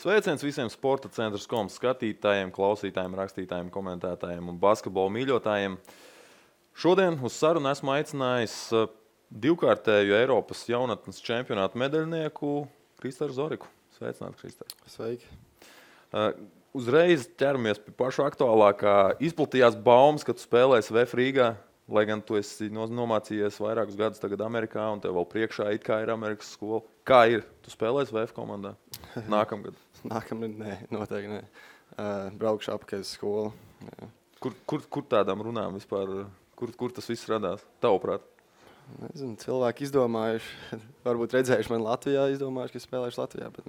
Sveiciens visiem Sporta centra.com skatītājiem, klausītājiem, rakstītājiem, komentētājiem un basketbola mīļotājiem. Šodien uz sarunu esmu aicinājis divkārtēju Eiropas jaunatnes čempionātu medaļnieku Kristaru Zoriku. Sveicināti, Kristār. Sveiki. Uzreiz ķeramies pie paša aktuālākā. Izplatījās baumas, ka tu spēlēsi VF Rīgā, lai gan tu esi nomācījies vairākus gadus tagad Amerikā un tev vēl priekšā it kā ir Amerikas skola. Kā ir? Tu spēlēsi VF komandā nākamgad? Nākamgad? Nē, noteikti nē. Braukšu apakaļ uz skolu. Jā. Kur tādām runām vispār, kur tas viss radās, tavuprāt? Nezinu, cilvēki izdomājuši, varbūt redzējuši mani Latvijā, izdomājuši, ka spēlēšu Latvijā, bet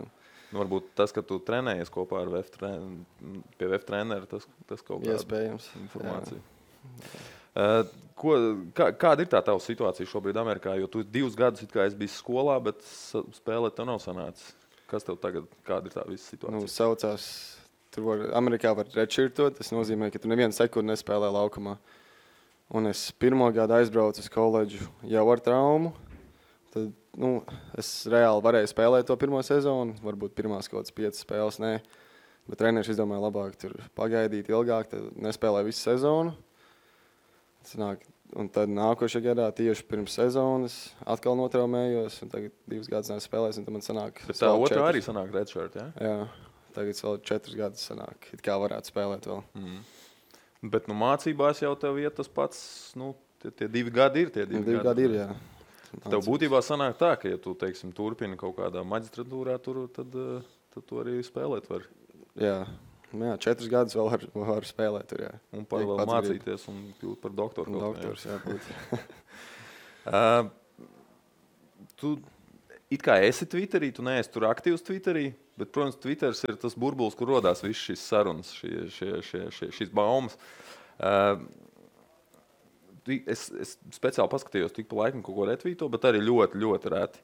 Varbūt tas, ka tu trenējies kopā ar pie VF treneru, tas kaut kāda iespējams informācija. Kāda ir tā tava situācija šobrīd Amerikā? Jo tu 2 gadus it kā esi bijis skolā, bet spēlēt tev nav sanācis. Kas tev tagad, kāda ir tā visa situācija? Saucās, Amerikā var redshirtot, tas nozīmē, ka tu nevienu sekundi nespēlē laukumā. Un es 1. gadu aizbraucu uz koledžu jau ar traumu. Tad, es reāli varēju spēlēt to 1. sezonu, varbūt pirmās kaut kādas 5 spēles, nē. Bet treneris izdomāja labāk tur pagaidīt ilgāk, tad nespēlēju visu sezonu. Un tad nākošajā gadā tieši pirms sezonas atkal notraumējos, un tagad 2 gadus nespēlēs, un tad man sanāk... Bet tā otrā arī sanāk redshirt, jā? Jā, tagad vēl 4 gadus sanāk, it kā varētu spēlēt vēl. Bet mācībās jau tev iet tas pats, tie 2 gadi ir tie 2 gadi. 2 gadi ir, jā. Tev būtībā sanāk tā, ka ja tu, teiksim, turpini kaut kādā maģistratūrā, tad tu arī spēlēt vari. Jā, 4 gadus vēl var spēlēt tur, jā. Un par vēl mācīties un kļūt par doktoru. Doktors, jā, būt. Tu it kā esi Twitterī, tu neesi tur aktīvs Twitterī, bet, protams, Twitters ir tas burbulis, kur rodās viss šīs sarunas, šīs baumas. Es speciāli paskatījos tik pa laikam kaut ko retvīto, bet arī ļoti, ļoti reti.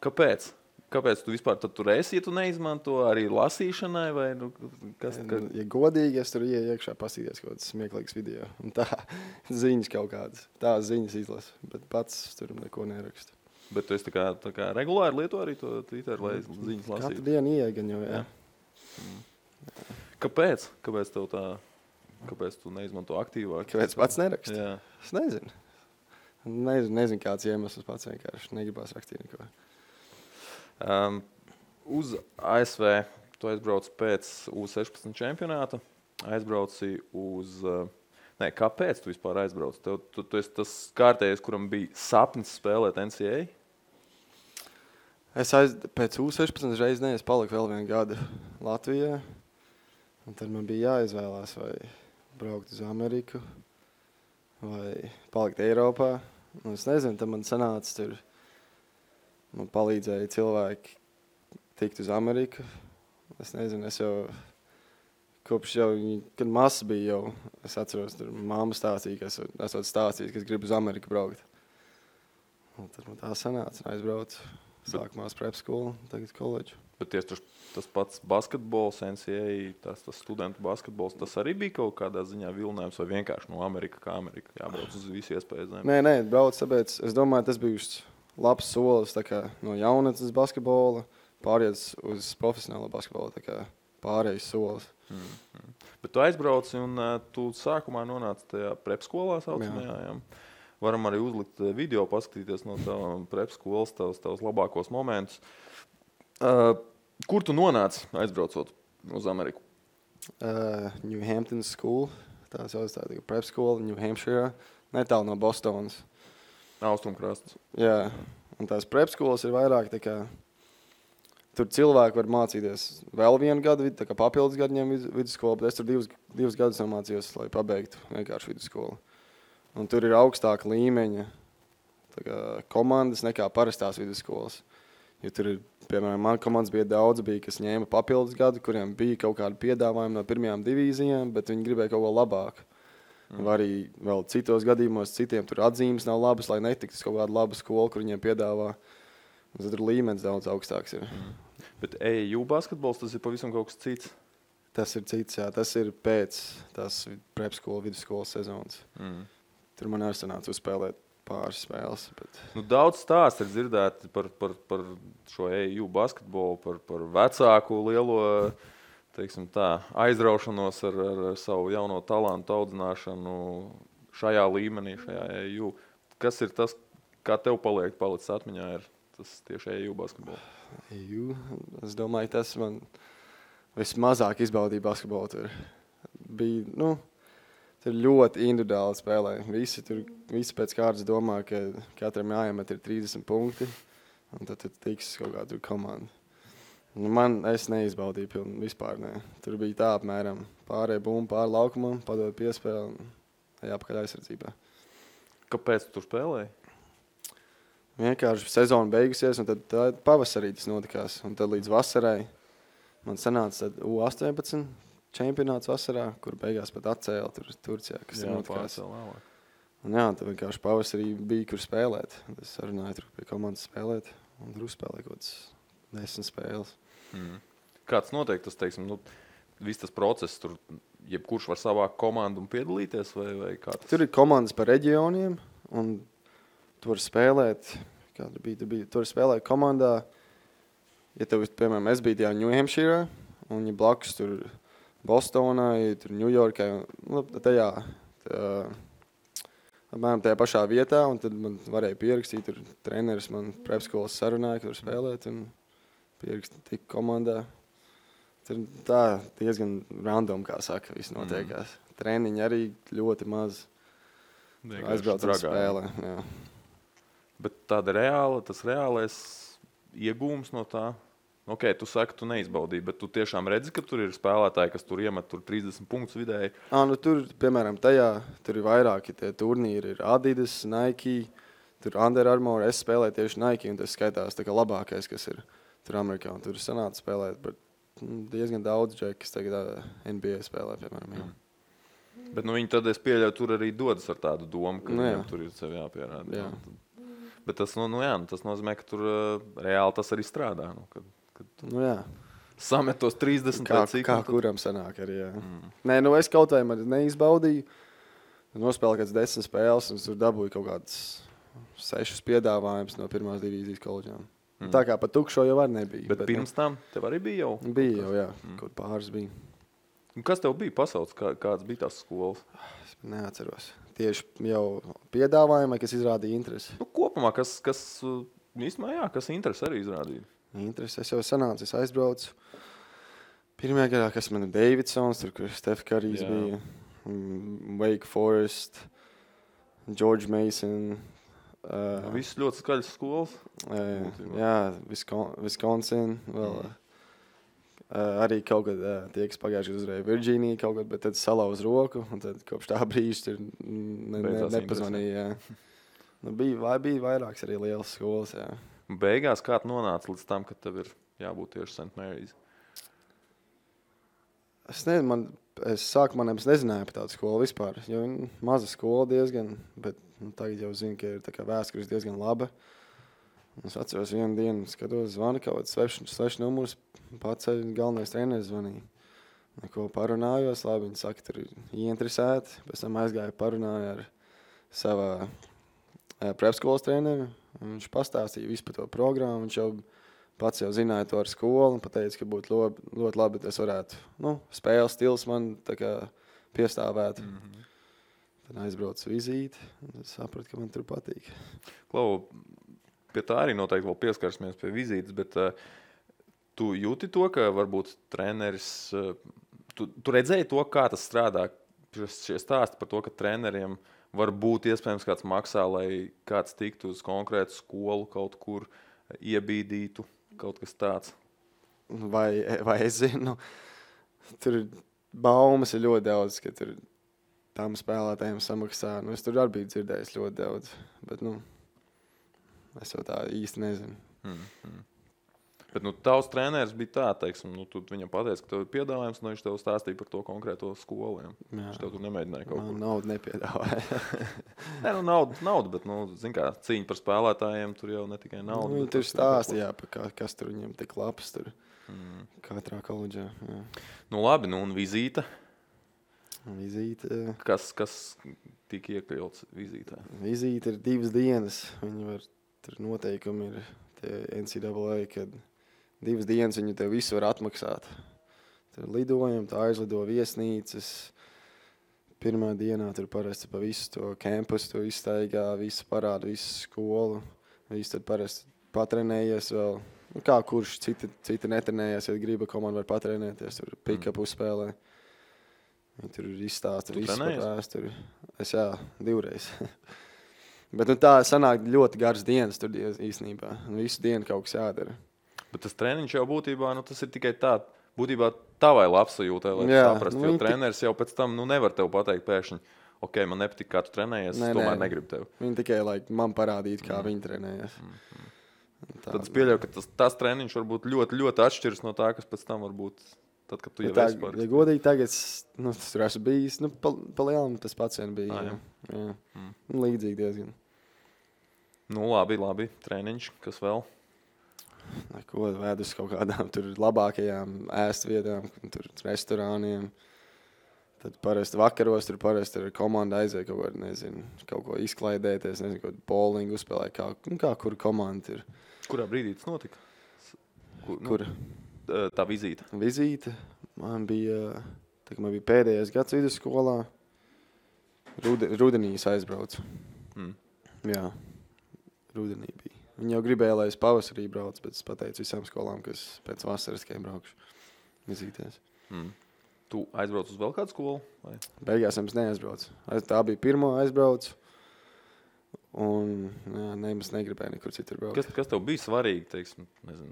Kāpēc? Kāpēc tu vispār tur esi, ja tu neizmanto arī lasīšanai? Vai, kas? Ja godīgi, es tur iekšā pasīties kaut kāds smieklīgs video. Un tā ziņas kaut kādas. Tās ziņas izlasu, bet pats tur neko nerakstu. Bet tu esi tā kā regulāri lieto arī to Twitter, lai ziņas lasītu? Katru dienu ieegan jau, jā. Kāpēc? Kāpēc tev tā... Kāpēc tu neizmanto aktīvāk? Kāpēc pats nerakstu? Jā. Es nezinu. Nezinu kāds iemesls pats vienkārši negribās rakstīt neko. Uz ASV tu aizbrauc pēc U16 čempionāta. Aizbrauci uz... kāpēc tu vispār aizbrauc? Tu esi tas kārtējais, kuram bija sapnis spēlēt NCAA? Pēc U16 reiz paliku vēl 1 gadu Latvijā. Un tad man bija jāizvēlās, vai braukt uz Ameriku, vai palikt Eiropā. Un es nezinu, tad man sanāca tur, man palīdzēja cilvēki tikt uz Ameriku. Es nezinu, es jau, kopš jau, kad mazs bija jau, es atceros, tur mamma stāstīja, ka esot stāstījis, ka es gribu uz Ameriku braukt. Un tad man tā sanāca, un aizbraucu. Sākumā uz prep skolu, tagad koledžu. Bet tas pats basketbols, NCAA, tas studentu basketbols, tas arī bija kaut kādā ziņā vilinājums vai vienkārši no Amerika kā Amerika jābrauc uz visu iespēju zemi? Nē, brauc, tāpēc es domāju, tas bija labs solis tā kā no jaunatnes basketbola pāriet uz profesionālo basketbolu, tā kā pārējais solis. Bet tu aizbrauci un tu sākumā nonāci tajā prep skolā saucamajā, jā. Varam arī uzlikt video, paskatīties no tavām prep skolas, tavs labākos momentus. Kur tu nonāci aizbraucot uz Ameriku? New Hampton School, tā sauc tā prep skola, New Hampshire, netālu no Bostonas. Austrumkrasts. Jā, un tās prep skolas ir vairāk tā kā, tur cilvēki var mācīties vēl 1 gadu, tā kā papildus gadiem vidusskolu, bet es tur 2 gadus nomācījos, lai pabeigtu vienkārši vidusskolu. Un tur ir augstāka līmeņa komandas nekā parastās vidusskolas. Jo tur ir, piemēram, man komandas bija daudz, kas ņēma papildus gadu, kuriem bija kaut kādi piedāvājumi no pirmajām divīzijām, bet viņi gribēja kaut ko labāku. Vai arī vēl citos gadījumos citiem tur atzīmes nav labas, lai netiktu uz kaut kādu labu skolu, kur viņiem piedāvā. Un tad tur līmenis daudz augstāks ir. Bet AAU basketbols, tas ir pavisam kaut kas cits? Tas ir cits, jā. Tas ir pēc tās prep skolu, vidusskolas sezonas. Tur man arī sanāca uzspēlēt pāris spēles. Bet... Daudz stāstu ir dzirdēti par šo EU basketbolu, par vecāku lielo teiksim tā, aizraušanos ar savu jauno talantu audzināšanu šajā līmenī, šajā EU. Kas ir tas, kā tev palicis atmiņā, ir tas tieši EU basketbols? EU? Es domāju, tas man vismazāk izbaudīja basketbolu. Tur bija, tur ļoti individuāli spēlē. Visi pēc kārtas domā, ka katram jāiemet ir 30 punkti, un tad tiks kaut kāda komanda. Es neizbaudīju vispār. Ne. Tur bija tā apmēram pārējai bumbu, pāri laukumam, padod piespēli un jāpakaļ aizsardzībā. Kāpēc tu tur spēlēji? Vienkārši sezona beigusies, un tad pavasarī tas notikās. Un tad līdz vasarai man sanāca U18 čempionāts vasarā, kur beigās pat atcēla Turcijā, kas ir notikās. Un tad vienkārši pavasarī bija, kur spēlēt. Es sarunāju tur pie komandas spēlēt, un tur uzspēlēju kaut kāds 10 spēles. Kāds notiek tas, teiksim, viss tas process, tur jebkurš var savākt komandu un piedalīties, vai kā tas? Tur ir komandas par reģioniem, un tu vari spēlēt, tu vari spēlēt komandā, ja tev, piemēram, es biju tajā New Hampshire, un ja blakus tur Bostonā, ja tur Ņujorkā, apmēram tajā pašā vietā, un tad man varēja pierakstīt, tur treneris man prepskolas sarunāja, ka tur spēlēt, un pierakstīt tik komandā. Tur tā diezgan random, kā saka, viss notiekās. Treniņi arī ļoti maz. Aizbrauc ar spēlē. Jā. Bet tāda tas reālais iegūms no tā? Ok, tu saki, tu neizbaudīji, bet tu tiešām redzi, ka tur ir spēlētāji, kas tur iemet 30 punktus vidēji. Tur, piemēram, tur ir vairāki tie turnīri. Ir Adidas, Nike, tur Under Armour. Es spēlēju tieši Nike, un tas skaitās tā kā labākais, kas ir tur Amerikā. Un tur sanāca spēlēt, bet diezgan daudz džeki, kas tagad NBA spēlē, piemēram. Jā. Bet viņi tad, es pieļauju, tur arī dodas ar tādu domu, ka viņam tur ir sev jāpierāda. Jā. Bet tas, tas nozīmē, ka tur reāli tas arī strādā. Jā. Samet tos 30 kā kuram sanāk arī, jā. Nē, es kaut vai neizbaudīju. Nospēlēju kāds 10 spēles, un tur dabūju kaut kāds 6 piedāvājumus no pirmās divīzijas koledžām. Tā kā pa tukšo jau var nebija. Bet pirms tam tev arī bija jau? Bija jau, jā. Kaut pāris bija. Un kas tev bija pasaules? Kāds bija tās skolas? Es neatceros. Tieši jau piedāvājumai, kas izrādīja interesi. Kopumā, kas interesi arī izrādīja? Interesi. Es jau sanācu, es aizbraucu. Pirmajā gadā, kas man ir Davidsons, tur, kur Steph Currys bija, Wake Forest, George Mason. Viss ļoti skaļas skolas. Jā, Wisconsin vēl. Arī kaut kad tie, kas pagājuši uzvarēja Virģīniju kaut kad, bet tad salauz roku, un tad kopš tā brīža nepazvanīja. Bija vairākas arī lielas skolas, jā. Beigās kā tu nonāca līdz tam, ka tev ir jābūt tieši St. Mary's? Es sākumā nezināju par tādu skolu vispār, jo maza skola diezgan, bet tagad jau zinu, ka ir tā kā vēstures diezgan laba. Es atceros vienu dienu, skatos, zvana kaut kāds svešs numurs, paceļ galvenais treneris zvanīja. Neko parunājos, labi, viņi saka, tur ir ieinteresēti. Pēc tam aizgāju parunāju ar savā prepskolas treneri. Viņš pastāstīja visu par to programmu. Viņš jau pats jau zināja to ar skolu un pateica, ka būtu ļoti labi, ja es varētu, spēles stils man tā kā piestāvētu. Tad aizbraucu vizīti un sapratu, ka man tur patīk. Klau, pie tā arī noteikti vēl pieskarsimies pie vizītes, bet tu jūti to, ka varbūt treneris, tu redzēji to, kā tas strādā, šie stāsti par to, ka treneriem var būt iespējams kāds maksā, lai kāds tiktu uz konkrētu skolu kaut kur iebīdītu, kaut kas tāds? Vai es zinu, tur baumas ir ļoti daudz, ka tur tam spēlētājiem samaksā. Es tur arī biju dzirdējis ļoti daudz, bet es jau tā īsti nezinu. Bet tavs treneris bija tā, teiksim, tu viņam pateici, ka tev ir piedāvājums, viņš tev stāstīja par to konkrēto skolu. Viņš tev tur nemēģināja kaut ko. Naudu nepiedāvāja. Nē, naudu, bet, zin kā, cīņa par spēlētājiem, tur jau ne tikai nauda. Tur stāstīja, kas tur viņam tik labs tur katrā koledžā. Jā. Labi, un vizīte? Vizīte. Kas tika iekļauts vizītē? Vizīte ir 2 dienas. Tur noteikumi ir tie NCAA, kad 2 dienas viņi tev visu var atmaksāt. Tur lidojumi, tā aizlido viesnīcas. Pirmā dienā tur parasti pa visu to kampusu tu izstaigā, visu parādu, visu skolu. Visu tad parasti patrenējies vēl. Nu, kā kurš citi netrenējies, ja griba komanda var patrenēties, tur pick-up uzspēlē. Viņi tur izstāsta visu par vēsturi. Es 2 reizes. Bet tā sanāk ļoti garas dienas tur īstenībā. Visu dienu kaut kas jādara. Bet tas treniņš jau būtībā, tas ir tikai tā, būtībā tavai labsajūtai, lai saprastu, jo treneris jau pēc tam nevar tev pateikt pēkšņi, ok, man nepatīk, kā tu trenējies, es tomēr negribu tevi. Viņi tikai man parādīt, kā viņi trenējas. Tad es pieļauju, ka tas treniņš var būt ļoti, ļoti atšķirs no tā, kas pēc tam var būt, tad, kad tu jau esi parasti. Ja godīgi tagad, tur esmu bijis, pa lielam tas pats vien bija. Jā. Līdzīgi diezgan. Labi, treniņš, kas vēl? Neko, vēd uz kaut kādām tur labākajām ēst vietām, tur restorāniem. Tad parasti vakaros tur parasti ar komandu aiziet kaut ko izklaidēties, nezinu, kaut bowlingu uzspēlēt, kā kur komanda ir. Kurā brīdī tas notika? Kur? Tā vizīte. Vizīte. Man bija pēdējais gads vidusskolā. Rudenī es aizbraucu. Jā, rudenī bija. Viņi jau gribēja, lai es pavasarī braucu, bet es pateicu visām skolām, ka es pēc vasaras tikai braukšu vizītēs. Tu aizbrauc uz vēl kādu skolu? Vai? Beigās es neaizbraucu. Tā bija pirmo aizbraucu. Un nemaz negribēju nekur citur braukt. Kas tev bija svarīgi, teiksim, nezinu,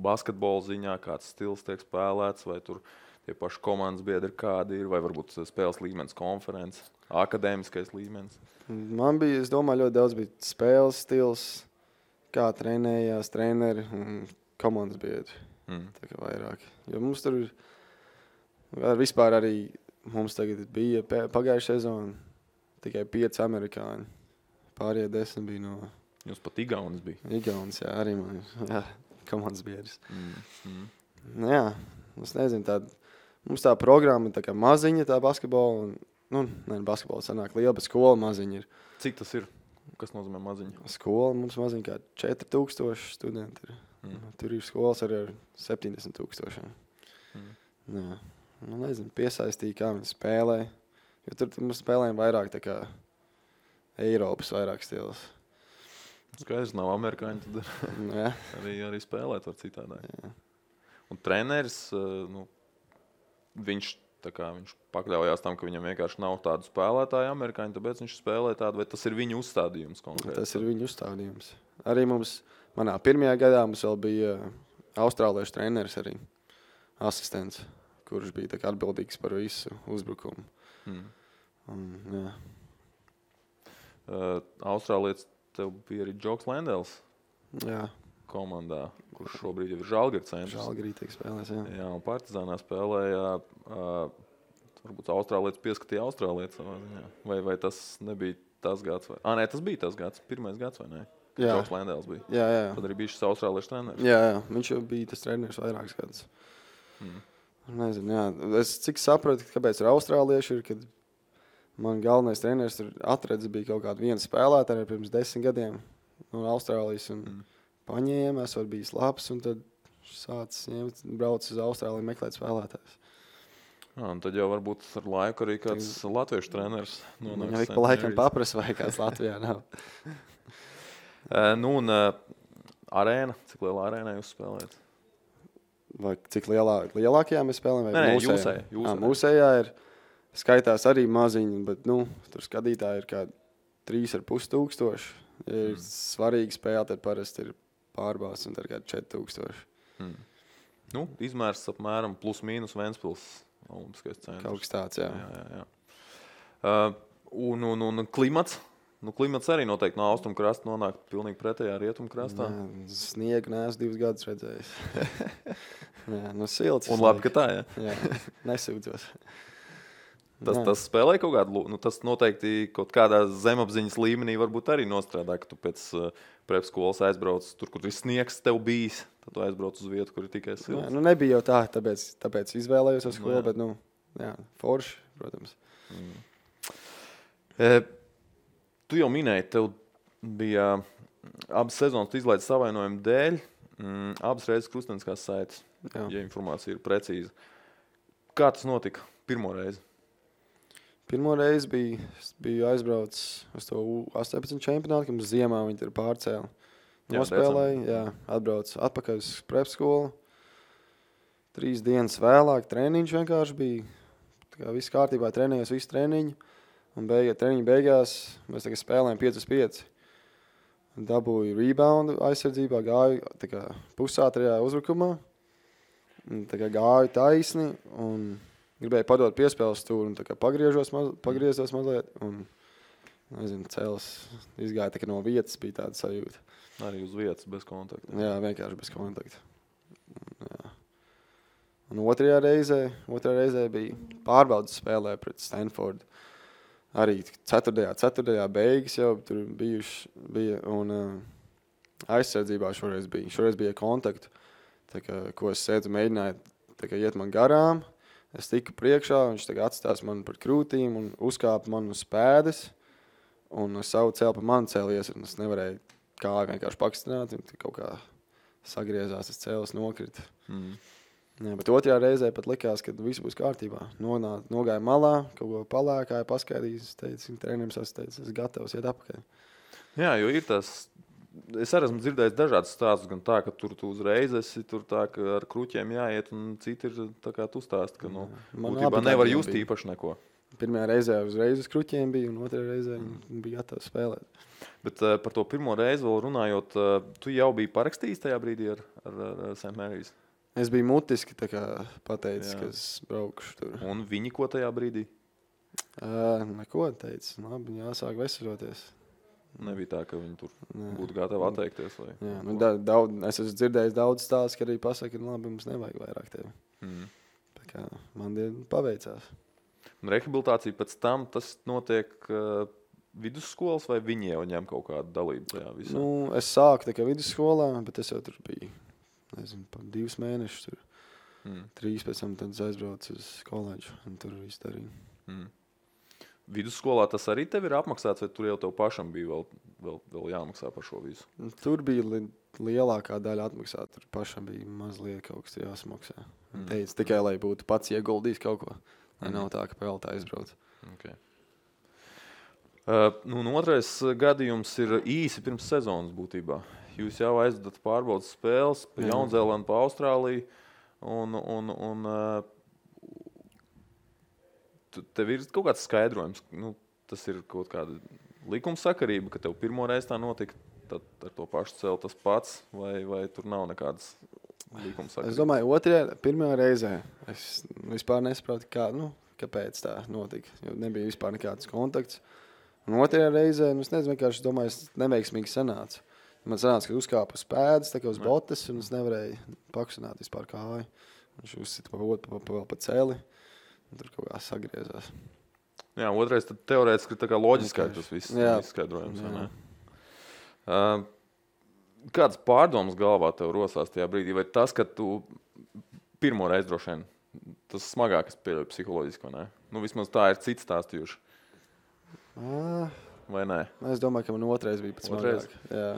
basketbola ziņā, kāds stils tiek spēlēts, vai tur tie paši komandas biedri kādi ir, vai varbūt spēles līmenis konferences, akadēmiskais līmenis? Man bija, es domāju, ļoti daudz bija spēles stils, kā trenējās treneri un komandas biedri. Tā kā vairāk. Jo mums tur vispār arī mums tagad bija pagājušā sezona tikai 5 amerikāņi. Pārējie 10 bija no... Jūs pat Igaunis bija? Igaunis, jā, arī man. Jā, komandas biedrs. Jā, es nezinu, mums tā programma tā kā maziņa, tā basketbola. Basketbola sanāk liela, bet skola maziņa ir. Cik tas ir? Kas nozīmē maziņa? Skola mums maziņa kā 4000 studenti ir. Tur ir skolas arī ar 70,000. Jā. Nezinu, piesaistīja, kā viņi spēlē. Jo tur mums spēlējam vairāk tā kā Eiropas vairāk stils. Skaidrs, nav amerikāņi, tad arī spēlēt var citādāk. Jā. Un treneris, viņš pakļaujās tam, ka viņam vienkārši nav tādu spēlētāju amerikāņu, tāpēc viņš spēlē tādu, vai tas ir viņu uzstādījums konkrēti? Tas ir viņu uzstādījums. Arī manā pirmajā gadā mums vēl bija austrāliešu treneris arī, asistents, kurš bija tā kā atbildīgs par visu uzbrukumu. Jā. Austrālietis tev bija arī Džoks Lendels komandā, kurš šobrīd jau ir Žalgiris centrs. Žalgirī tiek spēlēs, jā. Jā, un Partizānā spēlēja, varbūt Austrālietis pieskatīja Austrālietis savā ziņā. Vai tas nebija tas gads? Nē, tas bija tas gads, pirmais gads, vai ne? Jā. Džoks Lendels bija. Jā. Tad arī bija šis austrāliešu treneris. Jā, viņš jau bija tas treneris vairākus gadus. Nezinu, jā. Es cik sapratu, kāpēc ir austrālieši ir, kad man galvenais treneris tur atradis bija kaut kādu vienu spēlētāju pirms 10 gadiem no Austrālijas un paņēma, esot bijis labs un tad sācis brauc uz Austrāliju meklēt spēlētājus. Un tad jau varbūt ar laiku arī kāds latviešu treneris nonāks. Viņa pa laikam paprasa, vai kāds Latvijā nav. Arēna, cik lielā arēnā jūs spēlējat? Vai cik lielākajā mēs spēlējam? Nē, mūsējā ir skaitās arī maziņi, bet tur skatītāji ir kā 3,500. Ja ir svarīgi spēle, tad parasti ir pārbās un tad kā 4,000. Izmērs apmēram plus mīnus Ventspils olimpiskais centrs. Kaut kas tāds, jā. Un klimats? Klimats arī noteikti no austrumu krasta nonāk pilnīgi pretējā rietumu krastā. Sniegu neesmu 2 gadus redzējis. Silts. Un labi, ka tā, jā. Nesūdzos. Tas spēlē kaut kādu, tas noteikti kaut kādā zemapziņas līmenī varbūt arī nostrādā, ka tu pēc prep skolas aizbrauc tur, kur ir sniegs tev bijis, tad tu aizbrauc uz vietu, kur ir tikai silts. Nebija jau tā, tāpēc izvēlējos ar skolu, bet, forši, protams. Tu jau minēji, tev bija abas sezonas izlaides savainojumu dēļ, abas reizes krusteniskās saites, ja informācija ir precīza. Kā tas notika pirmo reizi? Pirmo reizi biju aizbraucis uz to 18 čempionātu, kad mums ziemā viņi tur pārcēla. Nospēlēja, atbraucu atpakaļ uz prepskolu. 3 dienas vēlāk treniņš vienkārši bija. Tā kā viss kārtībā, trenējos visu treniņu. Un treniņu beigās mēs tagad spēlējam 5-5. Dabūju reboundu aizsardzībā, gāju tā kā pusātrajā uzbrukumā. Tā kā gāju taisni un gribēju padot piespēles stūri un tā kā pagriezos mazliet. Un, nezinu, cēlis izgāja tā kā no vietas, bija tāda sajūta. Arī uz vietas, bez kontakta. Jā, vienkārši bez kontakta. Jā. Un otrajā reizē bija pārbaudas spēlē pret Stanfordu. Arī ceturtajā beigas jau tur bija un aizsardzībā šoreiz bija. Šoreiz bija kontaktu, tā kā, ko es sēdzu, mēģināju tā kā iet man garām. Es tiku priekšā, viņš tā kā atstās man par krūtīm un uzkāpa man uz pēdas. Un savu cēlu pa mani cēlies, un es nevarēju kāju vienkārši pakstināt, un kaut kā sagriezās, tas cēlis nokrita. Jā, bet otrajā reizē pat likās, ka viss būs kārtībā. Nogāja malā, kaut ko palēkāja, paskaidījis, teica, treneris es gatavs iet apakaļ. Jā, jo ir tas, es arī esmu dzirdējis dažādas stāstus, gan tā, ka tur tu uzreiz esi, tur tā, ka ar kruķiem jāiet, un citi ir tā kā tu stāsti, ka būtībā nevar just īpaši neko. Pirmajā reizē uzreiz uz kruķiem bija, un otrajā reizē bija gatavs spēlēt. Bet par to pirmo reizi vēl runājot, tu jau biji parakstījis tajā brīdī ar St. Mary's? Es biju mutiski tā kā pateicis, ka es braukšu tur. Un viņi ko tajā brīdī? Neko teica. Labi, jāsāk veseļoties. Nebija tā, ka viņi tur būtu gatavi atteikties? Vai? Jā, es esmu dzirdējis daudz stāstus, ka arī pasaka, ka labi, mums nevajag vairāk tevi. Tā kā man paveicās. Un rehabilitācija pēc tam, tas notiek vidusskolas vai viņi jau ņem kaut kādu dalību tajā visā? Es sāku tā kā vidusskolā, bet es jau tur biju, nezinu, 2 mēnešus tur. 3 pēc tam tad aizbraucu uz koledžu un tur visu darīju. Vidusskolā tas arī tev ir apmaksāts, vai tur jau tev pašam bija vēl jāmaksā par šo visu? Tur bija lielākā daļa atmaksāt, tur pašam bija mazliet kaut kas jāsamaksā. Teica tikai, lai būtu pats ieguldījis kaut ko. Nav tā, ka peltā aizbrauc. Okay. Otrais gadījums ir īsi pirms sezonas būtībā. Jūs jau aizvedat pārbaudas spēles pa Jaunzēlandu, pa Austrāliju. Un tev ir kaut kāds skaidrojums. Tas ir kaut kāda likumsakarība, ka tev pirmo reizi tā notika, tad ar to pašu cēlu tas pats, vai tur nav nekādas likumsakarības? Es domāju, pirmajā reizē es vispār nesaprotu, kāpēc tā notika. Jo nebija vispār nekāds kontakts. Un otrajā reizē, es nezinu, vienkārši domāju, es neveiksmīgi sanācu. Man sanāca, ka uzkāpa uz pēdas, tā kā uz botas, un es nevarēju pakustināt vispār kāju. Viņš uzsita pa celi, un tur kaut kā sagriezās. Jā, otrais tad teorētiski ir tā kā loģiskā tas viss izskaidrojums. Kādas pārdomas galvā tev rosās tajā brīdī? Vai tas, ka tu pirmo reizi droši vien, tas smagākais pieļauj psiholoģiski, vai ne? Vismaz tā ir cits stāstījuši. Vai nē? Es domāju, ka man otrais bija pēc smagāk. Jā.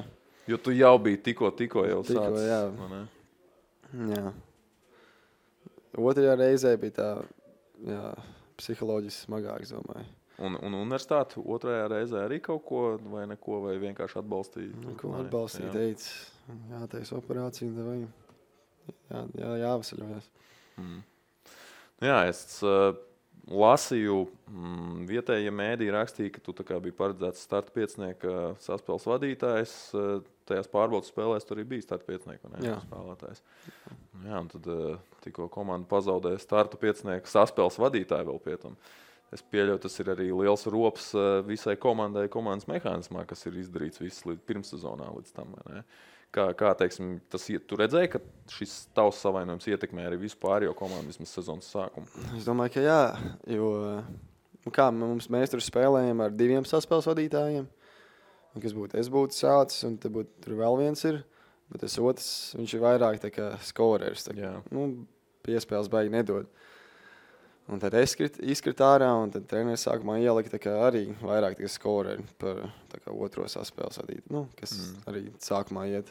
Jo tu jau biji tikko jau sācis. Jā. Otrajā reizē bija tā, psiholoģiski smagāks, domāju. Un universitāte otrajā reizē arī kaut ko vai neko, vai vienkārši atbalstīja? Neko atbalstīja, teica, jātais operācija, vai jāvasaļojas. Jā, es lasīju, vietējie mēdī rakstīja, ka tu tā kā biji paredzēts starta piecinieka saspēles vadītājs. Tajās pārbaudas spēlēs tur arī bija starta piecinieka spēlētājs. Jā, un tad tikko komanda pazaudēja starta piecinieka saspēles vadītāju vēl pie tam. Es pieļauju, tas ir arī liels rops visai komandai, komandas mehānismā, kas ir izdarīts viss pirmssezonā līdz tam. Kā teiksim, tu redzēji, ka šis tavs savainojums ietekmē arī visu pārējo komandu vismaz sezonas sākumu? Es domāju, ka jā, jo mēs tur spēlējam ar 2 saspēles vadītājiem. Es būtu sācis, un tur vēl viens ir, bet tas otrs, viņš ir vairāk tā kā skorers. Piespēles baigi nedod. Un tad es izkritu ārā, un tad treneris sākumā ielika tā kā arī vairāk tie skoreri par tā kā otro saspēles vadīt, nu, kas arī sākumā iet.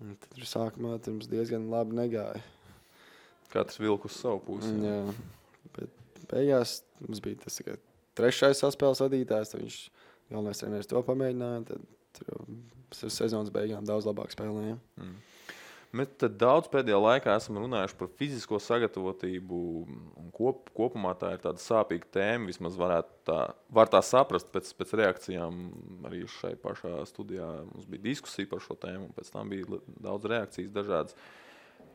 Un tad sākumā mums diezgan labi negāja. Katrs vilk uz savu pusi. Jā, bet beigās mums bija tas tikai trešais saspēles vadītājs, tad viņš galvenais treneris to pamēģināja, tad tur sezonas beigām daudz labāk spēlējām. Mēs daudz pēdējā laikā esam runājuši par fizisko sagatavotību. Kopumā tā ir tāda sāpīga tēma. Vismaz var tā saprast pēc reakcijām. Arī šai pašā studijā mums bija diskusija par šo tēmu, un pēc tam bija daudz reakcijas dažādas.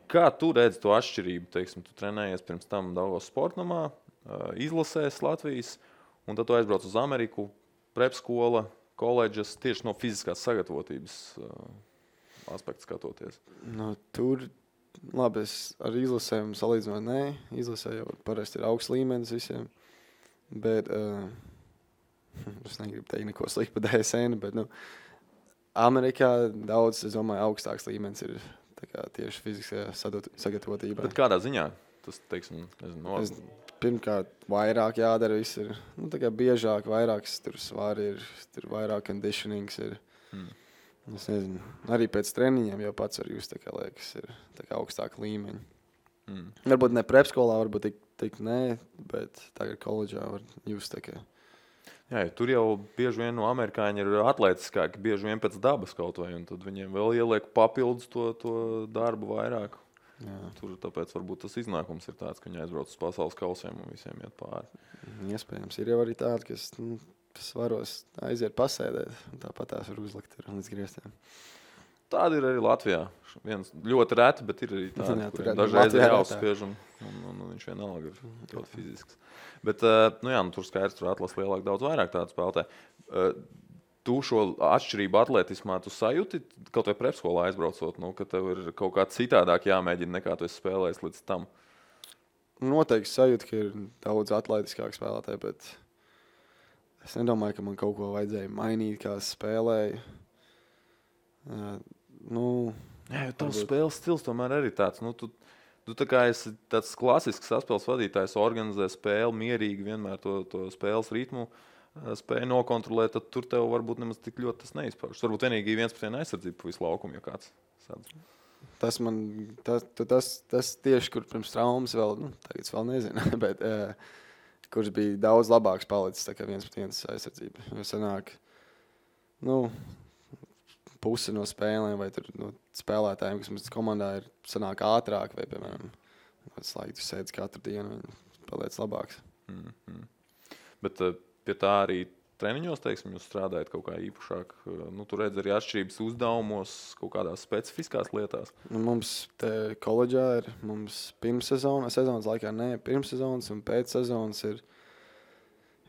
Kā tu redzi to atšķirību? Teiksim, tu trenējies pirms tam Daugavas sportnamā, izlasēs Latvijas, un tad tu aizbrauc uz Ameriku, prepskola, koledžas, tieši no fiziskās sagatavotības aspektu skatoties. Nu, tur, labi, es ar izlasēm salīdzinot, nē. Izlasē jau parasti ir augsts līmenis visiem. Bet, es negribu teikt neko sliktu par DSN, bet, Amerikā daudz, es domāju, augstāks līmenis ir tā kā tieši fiziskajā sagatavotībā. Bet kādā ziņā? Tas, teiksim, Pirmkārt, vairāk jādara viss ir, tā kā biežāk, vairāks tur svari ir, tur vairāk conditionings ir. Es nezinu, arī pēc treniņiem jau pats var just, tā kā liekas, ir tā kā augstāka līmeņa. Varbūt ne prepskolā, varbūt tik nē, bet tagad koledžā var just tā kā. Jā, tur jau bieži vien no amerikāņi ir atletiskāki, bieži vien pēc dabas kaut vai, un tad viņiem vēl ieliek papildus to darbu vairāk. Jā. Tur tāpēc varbūt tas iznākums ir tāds, ka viņi aizbrauc uz pasaules kausiem un visiem iet pāri. Iespējams, ir jau arī tādi, kas svaros aiziet pasēdēt, un tāpat tās var uzlikt līdz griestiem. Tāda ir arī Latvijā. Viens ļoti reti, bet ir arī tādi, kuriem dažreiz ir jāuzspiež, un viņš vienalga ir ļoti fizisks. Bet, tur skaidrs, tur atlas lielāk daudz vairāk tādu spēlētāju. Tu šo atšķirību atletismā tu sajūti, kaut vai prepskolā aizbraucot, ka tev ir kaut kā citādāk jāmēģina, nekā tu esi spēlējis līdz tam? Noteikti sajūti, ka ir daudz atletiskāk spēlētāji, bet es nedomāju, ka man kaut ko vajadzēja mainīt, kā spēlēju. Jā, jo tavs spēles stils tomēr arī tāds. Tu tā kā esi tāds klasisks saspēles vadītājs, organizē spēli mierīgi, vienmēr to spēles ritmu spēja nokontrolēt, tad tur tev varbūt nemaz tik ļoti tas neizpaužas. Varbūt vienīgi 1-1 aizsardzība pa visu laukumu, ja kāds sadz. Tas tieši, kur pirms traumas vēl, tagad es vēl nezinu, bet kurš bija daudz labāks palicis, tā kā 1-1 aizsardzība. Jo sanāk, pusi no spēlēm vai tur no spēlētājiem, kas mums komandā ir, sanāk ātrāk vai, piemēram, tu sēdz katru dienu un paliec labāks. Bet pie tā arī treniņos, teiksim, jūs strādājat kaut kā īpašāk. Tu redz arī atšķirības uzdevumos, kaut kādās specifiskās lietās. Mums te koledžā ir, mums sezonas laikā pirmssezonas un pēcsezonas ir,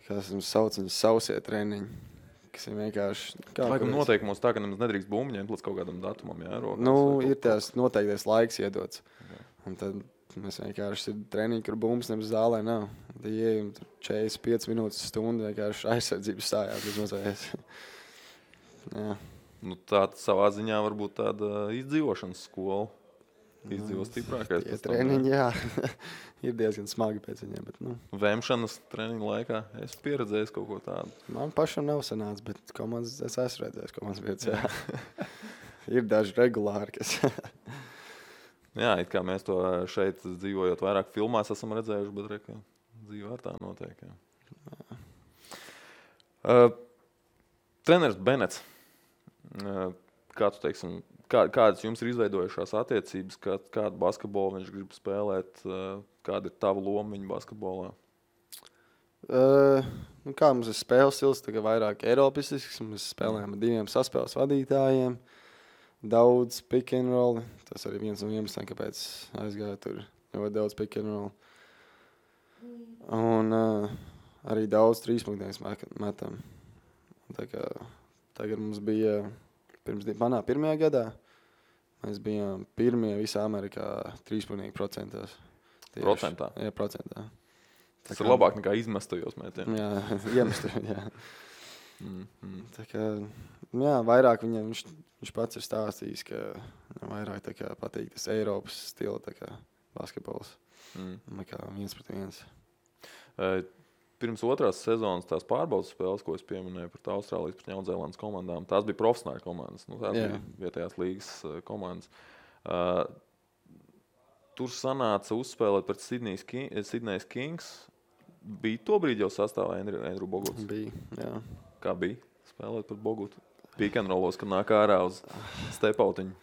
kā es sauc, viņas sausie treniņi, kas ir vienkārši... Laikam noteikumos tā, ka nemaz nedrīkst bumbu ņemt līdz kaut kādam datumam, jā? Ir tās noteiktais laiks iedots. Jā. Un tad mēs vienkārši ir treniņi, kur bumbas nemaz zālē nav. Tad ieejam 45 minūtes stundu vienkārši aizsardzības stājās bez mazvēs. Jā. Tā savā ziņā varbūt tāda izdzīvošanas skola. Izdzīvo stiprākais. Tie treniņi, jā. Ir diezgan smagi pēc viņiem, bet, Vemšanas treniņu laikā es pieredzējis kaut ko tādu. Man pašam nav sanācis, bet komandas es esmu redzējis komandas vietas, jā. Ir daži regulāri, kas... Jā, it kā mēs to šeit dzīvojot vairāk filmās esam redzējuši, bet reka dzīvē ar tā notiek. Treneris Benets, kā tu teiksim, kādas jums ir izveidojušās attiecības, kādu basketbolu viņš grib spēlēt, kāda ir tava loma viņa basketbolā? Kā mums ir spēles stils, tagad vairāk eiropistisks, mēs spēlējam ar 2 saspēles vadītājiem. Daudz pick and roll. Tas arī viens no iemesliem, kāpēc aizgāja tur ļoti daudz pick and roll. Un arī daudz 3-punktīgus metam. Tā kā tagad mums bija, manā pirmajā gadā, mēs bijām pirmie visā Amerikā 3-punktīgu procentos. Procentā? Jā, procentā. Tas ir labāk nekā izmestajos mētiem. Jā, iemestajos, jā. Tā kā, vairāk viņam, viņš pats ir stāstījis, ka vairāk tā kā patīk tas Eiropas stila tā kā basketbols. Nekā 1-1. Pirms otrās sezonas tās pārbaudas spēles, ko es pieminēju par Austrālijas pret Jaunzēlandes komandām, tās bija profesionāļu komandas. Tās bija vietējās līgas komandas. Tur sanāca uzspēlēt pret Sydney's Kings. Bija tobrīd jau sastāvā Andrew Boguts? Bija, jā. Kā bija spēlēt pret Bogutu? Pikanrolos, kad nāk ārā uz stepautiņu.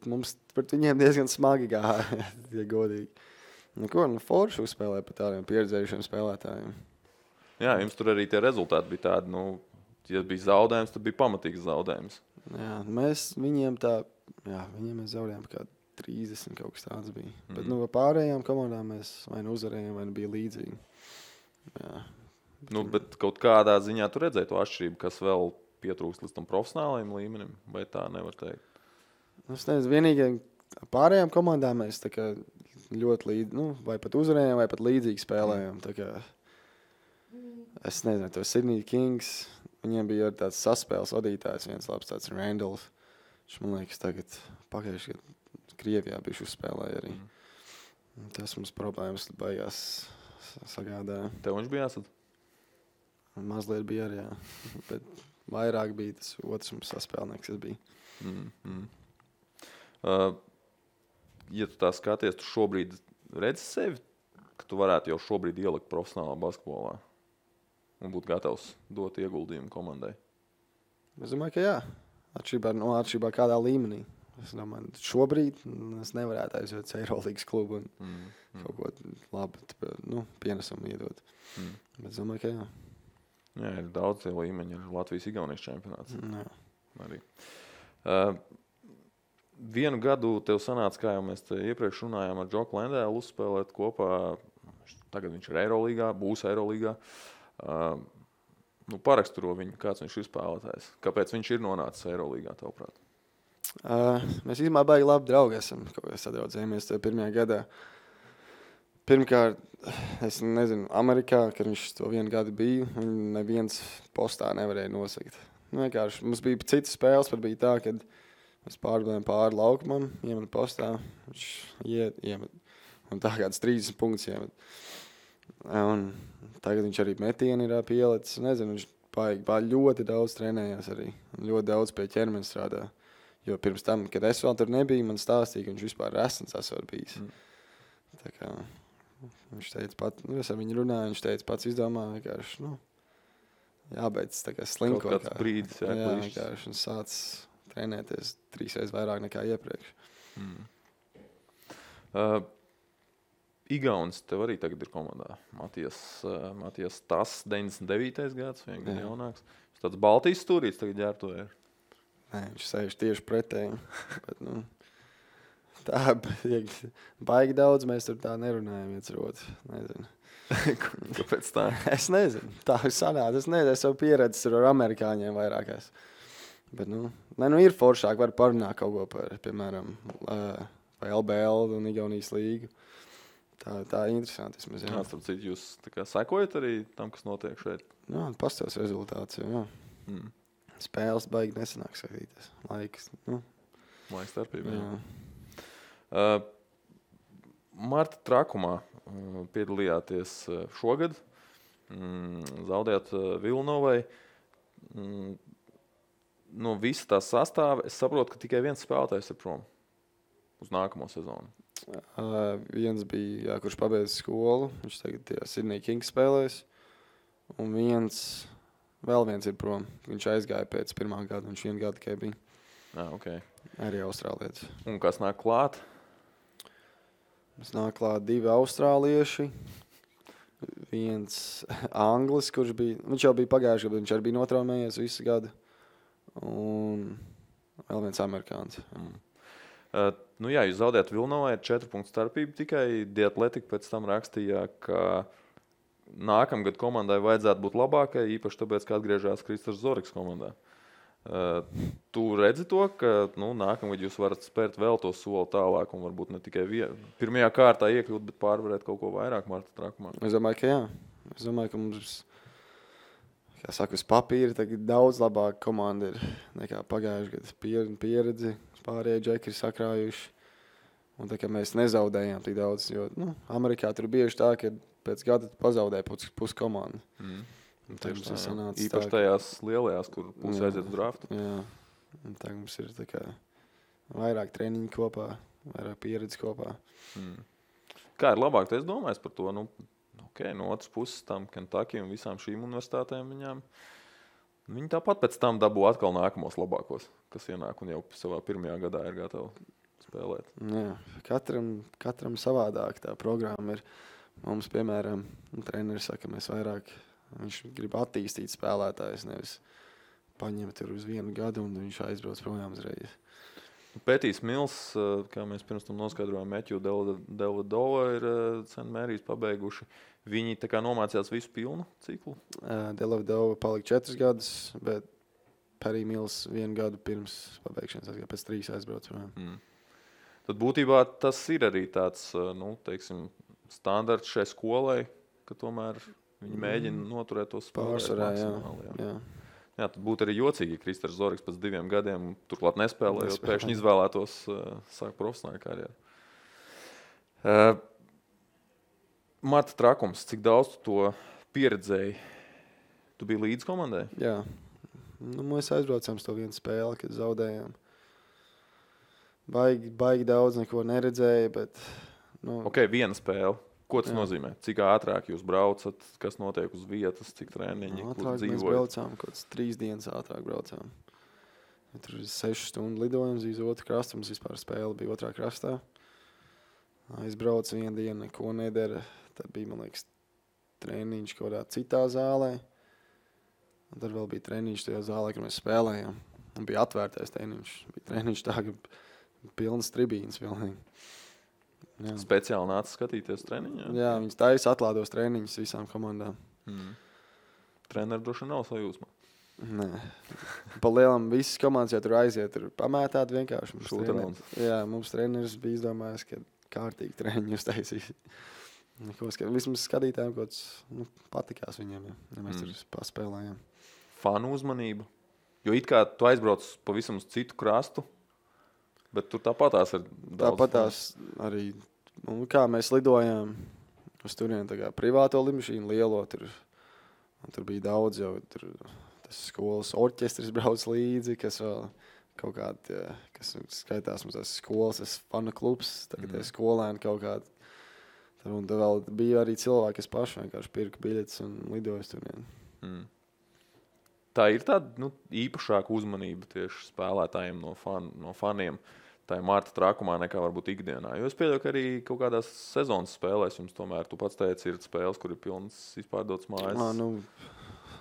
Mums pret viņiem diezgan smagi gāja, ja godīgi. Forši uzspēlēja par tādiem pieredzējušiem spēlētājiem. Jā, jums tur arī tie rezultāti bija tādi, ja bija zaudējums, tad bija pamatīgs zaudējums. Jā, viņiem mēs zaudējām kā 30 kaut kas tāds bija. Bet pārējām komandām mēs vai uzvarējām, vai bija līdzīgi. Jā. Bet kaut kādā ziņā tu redzēji to atšķirību, kas vēl pietrūkst līdz tam profesionālajiem līmenim, vai tā nevar teikt? Es nezinu, vienīgi pārējām komandām mēs tā kā ļoti vai pat uzvarējām, vai pat līdzīgi spēlējām. Tā kā, es nezinu, to Sydney Kings, viņiem bija tāds saspēles vadītājs, viens labs tāds Randalls. Viņš, man liekas, tagad pagājuši, kad Krievijā bijuši uzspēlēja arī. Tas mums problēmas beigās sagādāja. Tev viņš bija jāsad? Mazliet bija arī, jā. Bet vairāk bija tas otrs mums saspēlnieks, kas bija. Ja tu tā skaties, tu šobrīd redzi sevi, ka tu varētu jau šobrīd ielikt profesionālā basketbolā un būt gatavs dot ieguldījumu komandai? Es domāju, ka jā. Atšķirībā kādā līmenī. Es domāju, šobrīd es nevarētu aiziet uz Eirolīgas klubu un kaut ko labu pienesumu iedot. Bet es domāju, ka jā. Jā, ir daudz tie līmeņi, ir Latvijas-Igaunijas čempionāts. Jā. Arī. Vienu gadu tev sanāca, kā jau mēs te iepriekš runājām, ar Džoku Lendēlu uzspēlēt kopā. Tagad viņš ir Eirolīgā, būs Eirolīgā. Paraksturo viņu, kāds viņš ir spēlētājs. Kāpēc viņš ir nonācis Eirolīgā, tavuprāt? Mēs īstenībā baigi labi draugi esam, kaut kā sadraudzējamies tajā pirmajā gadā. Pirmkārt, es nezinu, Amerikā, kad viņš to vienu gadu bija, viņu neviens postā nevarēja nosakt. Vienkārši mums bija citas spēles, pat bija tā, kad mēs pārbēdējām pāri laukumam, iemet postā, viņš iemet. Un tā kāds 30 punktus iemet. Un tagad viņš arī metieni ir pielicis. Nezinu, viņš baigi ļoti daudz trenējās arī. Ļoti daudz pie ķermeņa strādā. Jo pirms tam, kad es vēl tur nebiju, man stāstīja, ka viņš vispār resns esot bijis. Tā kā viņš teica es ar viņu runāju, viņš teica pats izdomā vienkārši, jābeidz tā kā slinkot. Kaut kāds brīdis, jā, vienkārši un sāc trenēties 3 reizes vairāk nekā iepriekš. Igaunis tev arī tagad ir komandā. Matijas Tas, 99. gads, vien gadu jaunāks. Viņš tāds Baltijas stūrīts tagad ģērbto ir. Nē, viņš sēž tieši pretēji. Bet, tā baigi daudz, mēs tur tā nerunājam viens ar otru. Nezinu. Kāpēc tā? Es nezinu. Tā ir sanāca. Es nezinu, es savu pieredzi tur ar amerikāņiem vairākās. Bet, ir foršāk, var parunāt kaut ko par, piemēram, vai LBL un Igaunijas līgu. Tā ir interesanti. Starp citu, jūs tā kā sekojat arī tam, kas notiek šeit? Jā, pastāvs rezultāts, jā. Spēles baigi nesanāk skatīties. Laiks starpība. Marta Trakumā piedalījāties šogad. Zaudējāt Vilnovai. No visa tā sastāva es saprotu, ka tikai viens spēlētājs ir prom uz nākamo sezonu. Viens bija, kurš pabeidz skolu. Viņš tagad Sydney Kings spēlēs. Un vēl viens ir prom. Viņš aizgāja pēc pirmā gada. Viņš 1 gadu tikai bija. Okay. Arī austrālietis. Un kas nāk klāt? Mums nāk klāt 2 austrālieši. Viens anglis, kurš bija... Viņš jau bija pagājuši gadu, viņš arī bija notraumējies visu gadu. Un vēl viens amerikāns. Jūs zaudējat Vilnovai ar 4 punktu starpību. Tikai The Athletic pēc tam rakstīja, ka nākamgad komandai vajadzētu būt labākai, īpaši tāpēc, ka atgriežās Kristers Zoriks komandā. Tu redzi to, ka nākamgad jūs varat spērt vēl to soli tālāk un varbūt ne tikai pirmajā kārtā iekļūt, bet pārvarēt kaut ko vairāk Marta Trakumā? Es domāju, ka jā. Es domāju, ka mums, kā saka, uz papīra tagad daudz labāka komanda ir nekā pagājuši gadu. Pieredzi, pārējie džeki ir sakrājuši. Un tā kā mēs nezaudējām tik daudz, jo Amerikā tur bieži tā, ka pēc gada pazaudēja pusi komandu. Tieši tā, īpaši tajās lielajās, kur pusi aiziet uz draftu. Jā, un tā mums ir tā kā vairāk treniņu kopā, vairāk pieredzi kopā. Kā ir labāk, es domāju par to, no otras puses tam Kentucky un visām šīm universitātēm viņi tāpat pēc tam dabū atkal nākamos labākos, kas ienāk un jau savā pirmajā gadā ir gatavi spēlēt. Jā, katram savādāk tā programma ir. Mums, piemēram, treneris saka, mēs vairāk, viņš grib attīstīt spēlētājus, nevis paņemt tur uz 1 gadu un viņš aizbrauc projām uzreiz. Pētīs Mils, kā mēs pirms tam noskaidrojām, Matthew Dellavedova ir St. Mary's pabeiguši. Viņi tā kā nomācījās visu pilnu ciklu? Dellavedova palika 4 gadus, bet Perry Mills 1 gadu pirms pabeigšanas, pēc 3 aizbrauc projām. Tad būtībā tas ir arī tāds, standarts šai skolai, ka tomēr viņi mēģina noturēt tos spēlēt maksimāli. Jā, tad būtu arī jocīgi, ja Kristers Zorigs pēc 2 gadiem turklāt nespēlējot, pēkšņi izvēlētos sākt profesionālu karjeru. Marta Trakums, cik daudz tu to pieredzēji? Tu biji līdz komandai? Jā. Mēs aizbraucām uz to vienu spēli, kad zaudējām. Baigi daudz neko neredzēju, bet... Ok, viena spēle. Ko tas nozīmē? Cik ātrāk jūs braucat, kas notiek uz vietas, cik treniņi, kur dzīvojat? Mēs braucām, kaut 3 dienas ātrāk braucām. Tur ir 6 stundu lidojums uz otru krastu, mums vispār spēle bija otrā krastā. Aizbrauc 1 dienu, neko nedara. Tad bija, man liekas, treniņš kaut kādā citā zālē. Un tad vēl bija treniņš tajā zālē, kur mēs spēlējām. Un bija atvērtais treniņš. Bija treniņš tā, ka pilnas tribīnas pilnīgi. Jā. Speciāli nāca skatīties treniņā? Jā, viņas taisa atlādos treniņus visām komandām. Treneri droši nav sajūsmā? Nē. Pa lielam visas komandas jau tur aiziet, tur pamētāt vienkārši. Mums treneris bija izdomājis, ka kārtīgi treniņu uztaisīs. Vismaz skatītājiem kaut kas patikās viņiem, ja mēs tur paspēlējām. Fanu uzmanība? Jo it kā tu aizbrauc pavisam uz citu krastu, bet tur tāpatās ir daudz. Tāpatās arī, kā mēs lidojām uz turieni tā kā privāto lidmašīnu lielo, tur bija daudz jau, tas skolas orķestris brauc līdzi, kas vēl kaut kādi, kas skaitās mums tās skolas, tas fana klubs, tagad skolēni kaut kādi. Un tad vēl bija arī cilvēki, kas paši vienkārši pirka biļetes un lidoja uz turieni. Tā ir tāda īpašāka uzmanība tieši spēlētājiem no faniem. Tā ir Marta Trakumā nekā varbūt ikdienā. Jo es pieļauju, ka arī kaut kādās sezonas spēlēs jums tomēr, tu pats teici, ir spēles, kur ir pilnas izpārdotas mājas.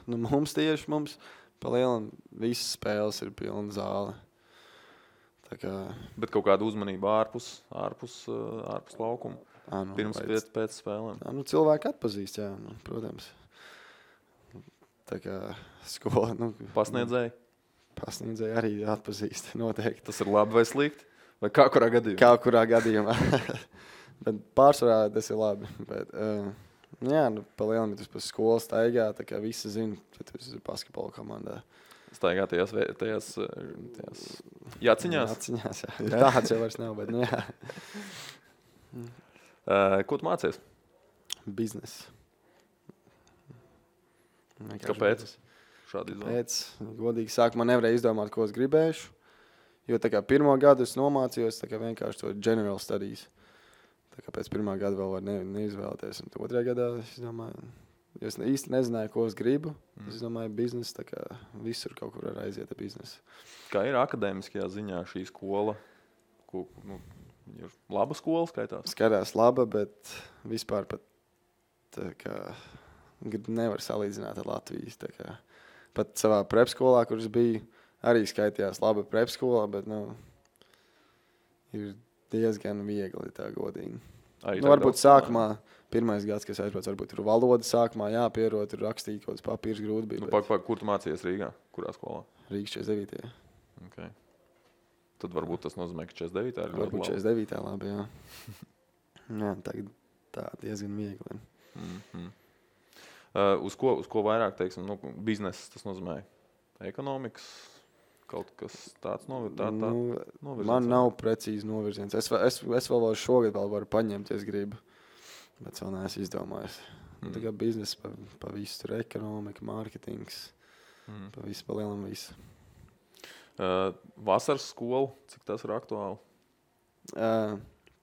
Mums pa lielam visas spēles ir pilna zāle. Tā kā... Bet kaut kāda uzmanība ārpus laukuma? Pirms pēc spēlēm? Cilvēki atpazīst, jā, protams. Tā kā skola... Pasniedzēji? Pasniedzēji arī atpazīst, noteikti. Tas ir labi vai slikti? Vai kā kurā gadījumā? Kā kurā gadījumā. Bet pārsvarā tas ir labi. Bet, pa lielam, ja tu pa skolu staigā, tā kā visi zina, ka tu esi basketbola komandā. Staigā tajās jāciņās? Jāciņās, jā. Tāds jau vairs nav, bet jā. Ko tu mācies? Biznes. Kāpēc? Šādi izdomāt? Pēc, godīgi sākumā nevarēju izdomāt, ko es gribēšu. Jo tā kā 1. gadu es nomācījos, tā kā vienkārši to general studies. Tā kā pēc 1. gada vēl var neizvēlēties. Un 2. gadā es domāju, jo es īsti nezināju, ko es gribu. Es domāju, biznes, tā kā visur kaut kur var aiziet ar biznesu. Kā ir akadēmiskajā ziņā šī skola? Ir laba skola skaitās? Skatās laba, bet vispār pat tā kā nevar salīdzināt ar Latvijas. Tā kā pat savā prepskolā, kur es biju, arī skaitījās laba prepskolā, bet ir diezgan viegli tā godīgi. Varbūt sākumā, 1. gads, kas aizbrauc, varbūt tur valoda sākumā jāpierod, tur rakstīt kaut kāds papīrs grūti bija. Kur tu mācījies Rīgā? Kurā skolā? Rīgas 49. Okay. Tad varbūt tas nozīmē, ka 49. ir varbūt 49. labi, jā. Jā, tagad tā diezgan viegli. Uz ko vairāk, teiksim, biznes, tas nozīmē ekonomikas, kaut kas tāds novirziens? Man nav precīzi novirziens. Es vēl šogad varu paņemt, ja es gribu, bet vēl neesmu izdomājis. Tā kā biznesa pa visu, tur ekonomika, mārketings, pa visu, pa lielam visu. Vasaras skola, cik tas ir aktuāli?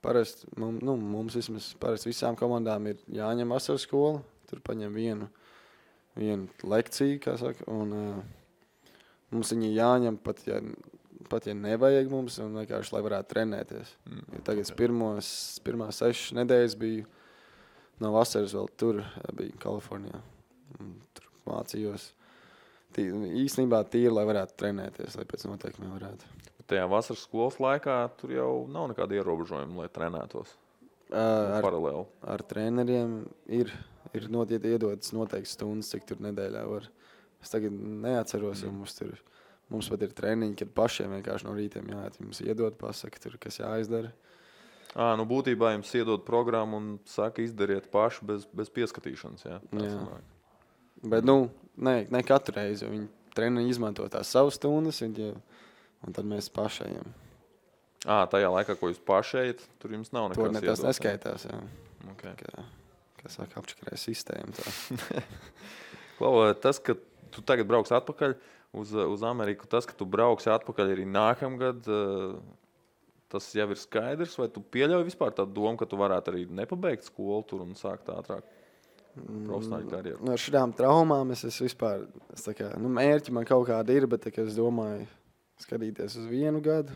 Parasti mums vismaz parasti visām komandām ir jāņem vasaras skola. Tur paņem vienu lekciju, kā saka, un mums viņi jāņem pat ja nevajag mums, un vienkārši, lai varētu trenēties. Ja tagad pirmās 6 nedēļas biju no vasaras vēl tur, biju Kalifornijā. Tur mācījos. Īstenībā tīri, lai varētu trenēties, lai pēc noteikumiem varētu. Tajā vasaras skolas laikā tur jau nav nekāda ierobežojuma, lai trenētos paralēli. Ar treneriem ir iedotas noteikti stundas, cik tur nedēļā var. Es tagad neatceros, jo mums pat ir treniņi, kad pašiem vienkārši no rītiem jāiet. Jums iedod, pasaka, tur, kas jāizdara. Nu būtībā jums iedod programmu un saka, izdariet paši bez pieskatīšanas, jā? Jā. Bet, ne katru reizi, jo viņi treneri izmanto tās savas stundas, un tad mēs pašajiem. Tajā laikā, ko jūs pašējat, tur jums nav nekas iedots. Tas neskaitās, jā. Okay. Kā saka, apčakarē sistēmu. Klau, tas, ka tu tagad brauks atpakaļ uz Ameriku, tas, ka tu brauksi atpakaļ arī nākamgad, tas jau ir skaidrs, vai tu pieļauj vispār tādu domu, ka tu varētu arī nepabeigt skolu tur un sākt ātrāk profesionāļu karjeru? Ar šādām traumām es vispār, mērķi man kaut kādi ir, bet es domāju skatīties uz 1 gadu.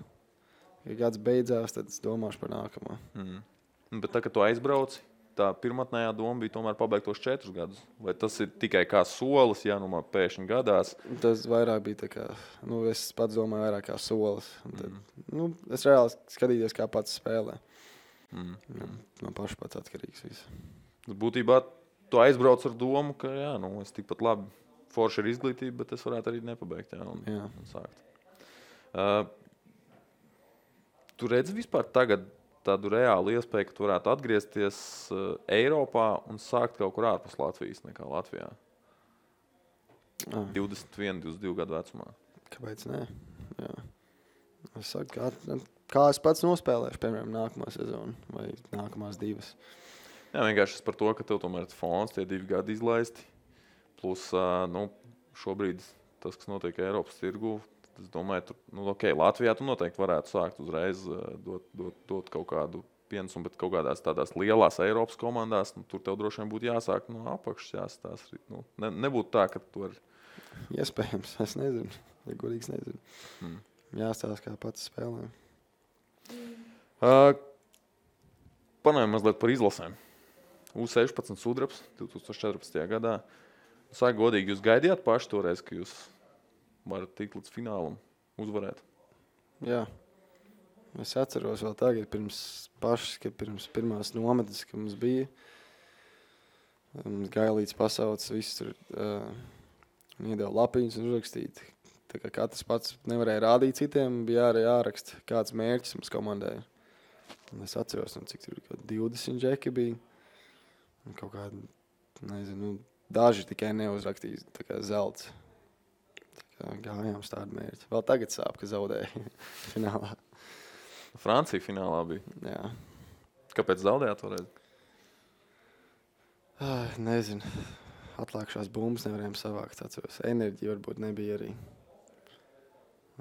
Ja gads beidzās, tad es domāšu par nākamo. Bet tā, kad tu aizbrauci, tā pirmatnējā doma bija tomēr pabeigt tos 4 gadus? Vai tas ir tikai kā solis, ja man pēkšņi gadās? Tas vairāk bija tā kā, es pats domāju vairāk kā solis. Tad, es reāli skatījos, kā pats spēlē. No paša pats atkarīgs viss. Būtībā tu aizbrauc ar domu, ka es tikpat labi forši ar izglītību, bet es varētu arī nepabeigt un sākt. Tu redzi vispār tagad tādu reālu iespēju, ka tu varētu atgriezties Eiropā un sākt kaut kur ārpus Latvijas nekā Latvijā? 21, 22 gadu vecumā. Kāpēc ne? Jā. Es saku, kā es pats nospēlēšu, piemēram, nākamā sezonu vai nākamās 2. Jā, vienkārši par to, ka tev tomēr ir fons, tie 2 gadi izlaisti. Plus, šobrīd tas, kas notiek Eiropas tirgu, es domāju, Latvijā tu noteikti varētu sākt uzreiz dot kaut kādu pienesumu, bet kaut kādās tādās lielās Eiropas komandās, tur tev droši vien būtu jāsāk no apakšas jāstāst. Nebūtu tā, ka tu vari... Iespējams, es nezinu. Ja godīgs nezinu. Jāstāst, kā pats spēlē. Panājam mazliet par izlasēm. U16 sudrabs 2014. gadā. Sāk godīgi, jūs gaidījāt paši toreiz, ka jūs varat tikt līdz finālam, uzvarēt? Jā. Es atceros vēl tagad, pirms pirmās nometnes, ka mums bija. Mums Gailīts pasaucis, viss tur iedeva lapiņas un uzrakstīt. Tā kā katrs pats nevarēja rādīt citiem, bija arī jāraksta, kāds mērķis mums komandai. Un es atceros, cik tur 20 džeki bija. Un kaut kādi, nezinu, daži tikai neuzrakstīja, tā kā zelts. Gājām uz tādu mērķi. Vēl tagad sāp, ka zaudēja finālā. Francija finālā bija? Jā. Kāpēc zaudējāt toreiz? Nezinu. Atlākšās bumbas nevarējām savākt, atceros. Enerģija varbūt nebija arī.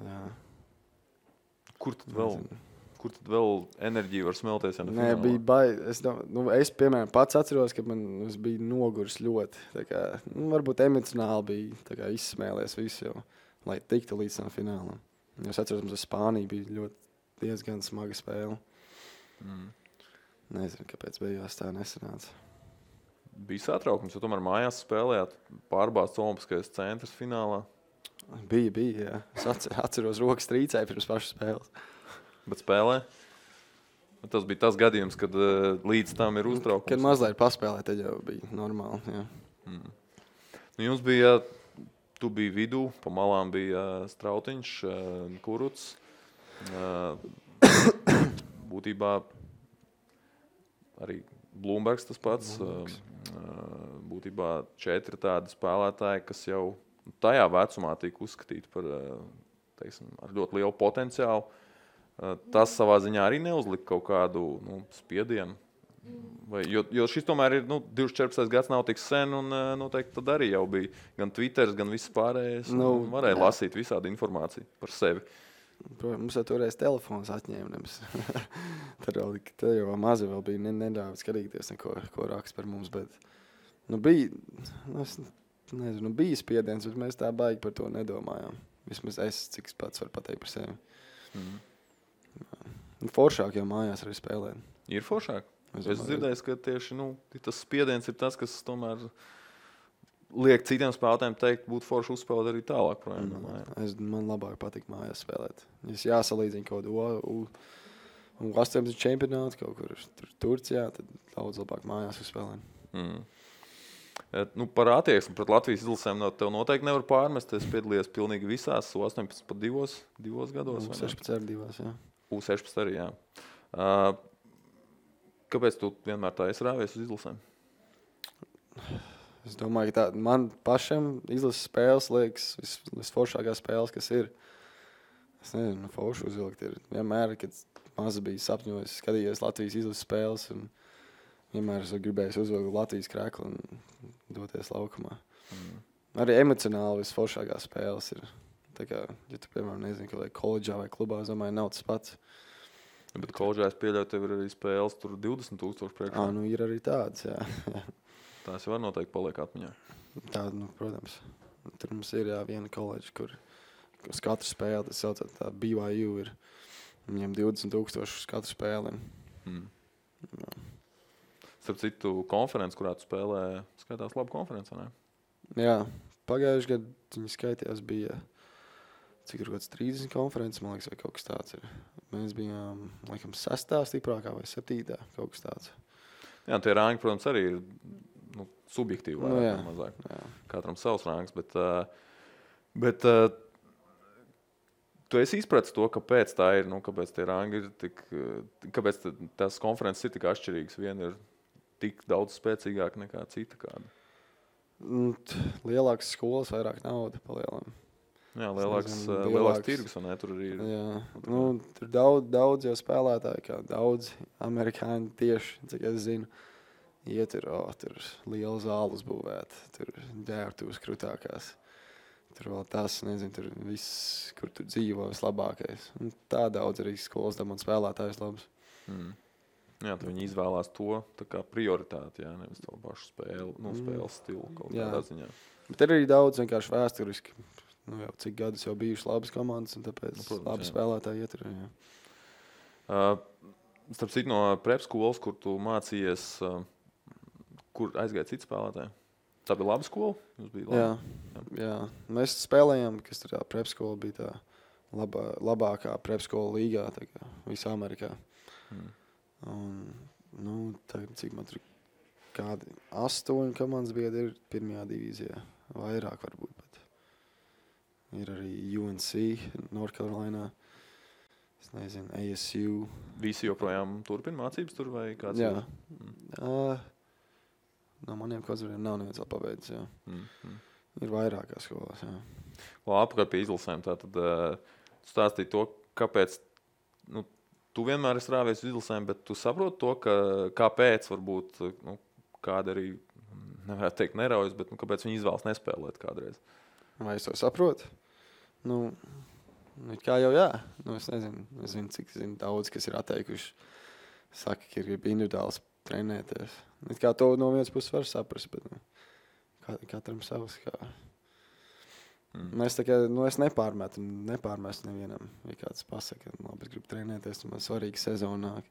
Jā. Kur tad vēl enerģija var smelties? Ja Nē, bija baigi. Es, piemēram, pats atceros, ka es biju noguris ļoti. Tā kā, varbūt emocionāli bija tā kā izsmēlies visu jau, lai tiktu līdz tam finālam. Es atceros, mums ar Spāniju bija diezgan smaga spēle. Nezinu, kāpēc beigās tā nesanāca. Bija satraukums, jo tomēr mājās spēlējāt pārbāzts Olimpiskais centrs finālā. Bija, jā. Es atceros, rokas trīcēja pirms pašas spēles. Bet spēlē? Tas bija tas gadījums, kad līdz tam ir uztraukums. Kad mazliet paspēlē, tad jau bija normāli, jā. Jums bija, tu biji vidū, pa malām bija Strautiņš, Kurucs. Būtībā arī Blūmbergs tas pats. Būtībā 4 tādi spēlētāji, kas jau tajā vecumā tika uzskatīti par, ar ļoti lielu potenciālu. Tas savā ziņā arī neuzlika kaut kādu spiedienu Jo šis tomēr ir 2014. gads, nav tik sen, un noteikti tad arī jau bija gan Twitter, gan viss pārējais. Varēja lasīt visādi informāciju par sevi. Protams, mums jau toreiz telefons atņēma. Tad jau mazi vēl bija neļāvis skatīties, ko raksta par mums. Bet, bija, bija spiediens, bet mēs tā baigi par to nedomājām. Vismaz cik pats var pateikt par sevi. Foršāk jau mājās arī spēlēt. Ir foršāk? Es dzirdēju, ka tieši tas spiediens ir tas, kas tomēr liek citiem spēlētājiem teikt, būtu forši uzspēlēt arī tālāk projām. Man labāk patīk mājās spēlēt. Es jāsalīdzina kaut kādu U18 čempionātu kaut kur Turcijā, tad daudz labāk mājās uzspēlēt. Par attieksmi pret Latvijas izlasēm tev noteikti nevar pārmest. Es piedalījos pilnīgi visās U18 pat divos gados. U16 arī divās, jā. U16 arī, jā. Kāpēc tu vienmēr tā esi rāvies uz izlasēm? Es domāju, ka man pašam izlases spēles liekas visforšākās spēles, kas ir. Es nezinu, forši uzvilkt ir. Vienmēr, kad maz bija sapņojis, skatījos Latvijas izlases spēles, un vienmēr es gribēju uzvilkt Latvijas kreklu un doties laukumā. Arī emocionāli visforšākās spēles ir. Tā kā, ja tu, piemēram, nezinu, ka vai koledžā vai klubā, es domāju, nav tas pats. Bet koledžā es pieļauju, tev ir arī spēles, tur 20,000 priekšā. Ir arī tāds, jā. Tās jau var noteikti paliek atmiņā. Tā, protams. Tur mums ir viena koledža, kur uz katru spēli, tas saucot tā BYU ir. Viņiem 20,000 uz katru spēli. Starp citu, konferences, kurā tu spēlē, skaitās labu konferenci, ne? Jā, pagājuši gadu viņi skaitījās bija, cik ir kaut kāds 30 konferences, man liekas, vai kaut kas tāds ir. Mēs bijām, laikam, 6. stiprākā vai 7. kaut kas tāds. Jā, tie rāņi, protams, arī ir subjektīvi vairāk, mazāk. Jā. Katram savs rāngs, bet tu esi izpratis to, kāpēc tā ir, kāpēc tie rāngi ir tik, kāpēc tās konferences ir tik atšķirīgas. Viena ir tik daudz spēcīgāka nekā cita kāda. Lielākas skolas, vairāk nauda palielam. Jā, lielāks tirgus, un tur arī ir. Jā, tur daudz jau spēlētāji, kā daudz amerikāņi tieši, cik es zinu, tur liela zāle uzbūvēt, tur ģērbtuves krūtākās. Tur vēl tas, nezinu, tur viss, kur tur dzīvo vislabākais. Un tā daudz arī skolas dabūna spēlētājs labs. Jā, tad viņi izvēlās to tā kā prioritāti, jā, nevis to pašu spēles stilu kaut kādā ziņā. Bet ir arī daudz vienkārši vēsturiski. Jau cik gadus jau bijušas labas komandas, un tāpēc labi spēlētāji ietur. Starp citu no prep skolas, kur tu mācījies, kur aizgāja citi spēlētāji? Tā bija laba skola? Jā. Mēs spēlējām, kas tur tā prep skola bija tā labākā prep skola līgā, tā kā visā Amerikā. Un, tagad, cik man tur kādi 8 komandas biedri ir pirmajā divīzijā. Vairāk varbūt pat. Ir arī UNC, North Carolina, es nezinu, ASU. Visi joprojām turpina mācības tur vai kāds? Jā. No maniem kozuriem nav neviens vēl pabeidzis, jā. Ir vairākās skolās, jā. Apkārt pie izlasēm, tātad stāstīja to, kāpēc, tu vienmēr esi rāvies uz izlasēm, bet tu saproti to, kāpēc varbūt, kāda arī, nevarētu teikt neraujas, bet kāpēc viņi izvēlas nespēlēt kādreiz. Vai es to saprotu? Kā jau jā. Es nezinu, cik daudz, kas ir atteikuši. Saka, ka ir individuāls trenēties. Kā to no vienas puses var saprast, bet katram savs. Mēs es nepārmetu nevienam. Ja kāds pasaka, labi, es gribu trenēties, man svarīgi sezona nāk.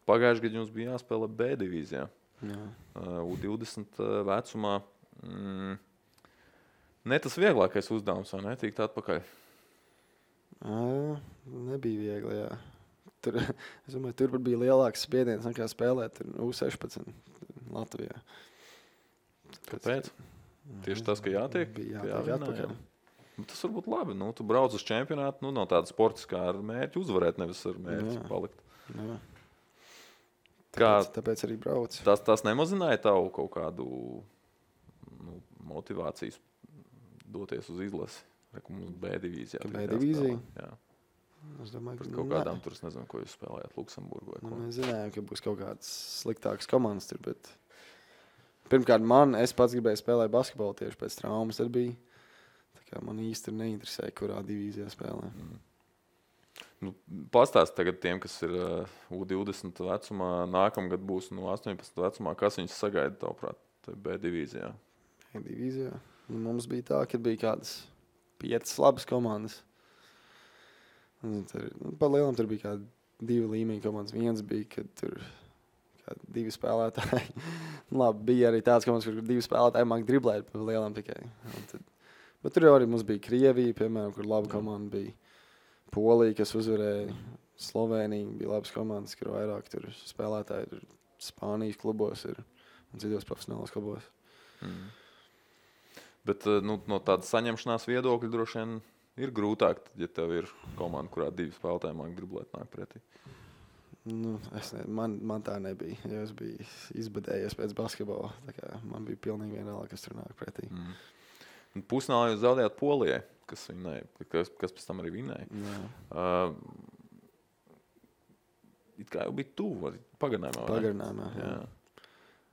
Pagājuši gadu jums bija jāspēlē B divīzijā. U20 vecumā. Ne tas vieglākais uzdevums, vai ne? Tikt atpakaļ? Nebija viegli, jā. Es domāju, tur bija lielāks spiediens nekā spēlēt U16 Latvijā. Kāpēc? Tieši tas, ka jātiek? Bija jātiek atpakaļ. Tas var būt labi. Tu brauc uz čempionātu, nav tāda sportiskā ar mērķi uzvarēt, nevis ar mērķi palikt. Jā. Tāpēc arī brauc. Tas nemazināja tavu kaut kādu motivācijas doties uz izlasi. Mums B divīzijā. B divīzija? Jā. Es domāju, Pret kaut kādām tur, es nezinu, ko jūs spēlējāt Luksemburgu vai ko. Mēs zinājām, ka būs kaut kādas sliktākas komandas tur, bet pirmkārt es pats gribēju spēlēt basketbolu tieši pēc traumas. Tad bija, tā kā man īsti neinteresēja, kurā divīzijā spēlē. Nu, pastāst tagad tiem, kas ir U20 vecumā, nākamgad būs 18 vecumā, kas viņus sagaida, tavuprāt, B divīzijā? Divīzijā. Nu, mums bija tā, ka bija kādas 5 labas komandas. Pa lielam tur bija kādi 2 līmeņi komandas. Viens bija, kad tur 2 spēlētāji. Labi, bija arī tāds komandas, kur 2 spēlētāji māk driblēt pa lielam tikai. Bet tur arī mums bija Krievija, piemēram, kur laba komanda bija. Polija, kas uzvarēja. Slovēnija bija labas komandas, kur vairāk tur spēlētāji tur Spānijas klubos ir un citos profesionālos klubos. Bet no tādas saņemšanās viedokļa droši vien ir grūtāk, ja tev ir komanda, kurā 2 spēlētāji māk driblēt nāk pretī. Nu, man tā nebija. Es biju izbadējies pēc basketbola. Man bija pilnīgi vienalga, kas tur nāk pretī. Pusfinālā jūs zaudējāt Polijai, kas pēc tam arī vinēja. It kā jau bija tuvu pagarinājumā. Pagarinājumā, jā.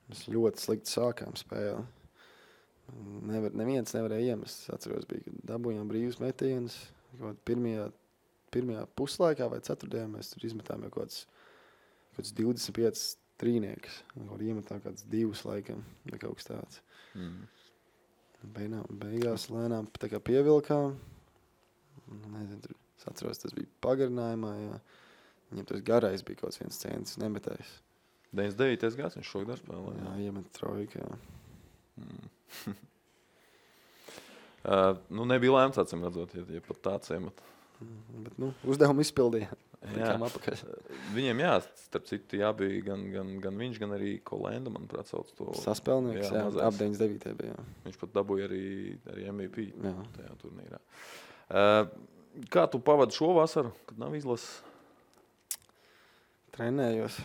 Mēs ļoti slikti sākām spēli. Neviens nevarēja iemest. Es atceros, bija, kad dabūjām brīvus metienus. Pirmajā puslaikā vai ceturtajā mēs tur izmetām jau kaut kāds 25 trīniekus. Iemetām kāds 2 laikam, vai kaut kas tāds. Beigās lēnām tā kā pievilkām. Nezinu, tur, es atceros, tas bija pagarinājumā, jā. Viņam tas garais bija kaut kāds 1 centis nemetējis. 99. gads viņš šogad spēlē. Jā, iemet trojku, jā. Nebija lēmts, acīm redzot, ja pat tāds iemet. Bet, uzdevumu izpildījām. Jā. Viņiem, starp citu, bija gan viņš, gan arī Kolenda, manuprāt, sauc to. Saspēlnieks, jā, ap 99. bija, jā. Viņš pat dabūja arī MVP jā. Tajā turnīrā. Kā tu pavadi šo vasaru, kad nav izlases? Trenējos.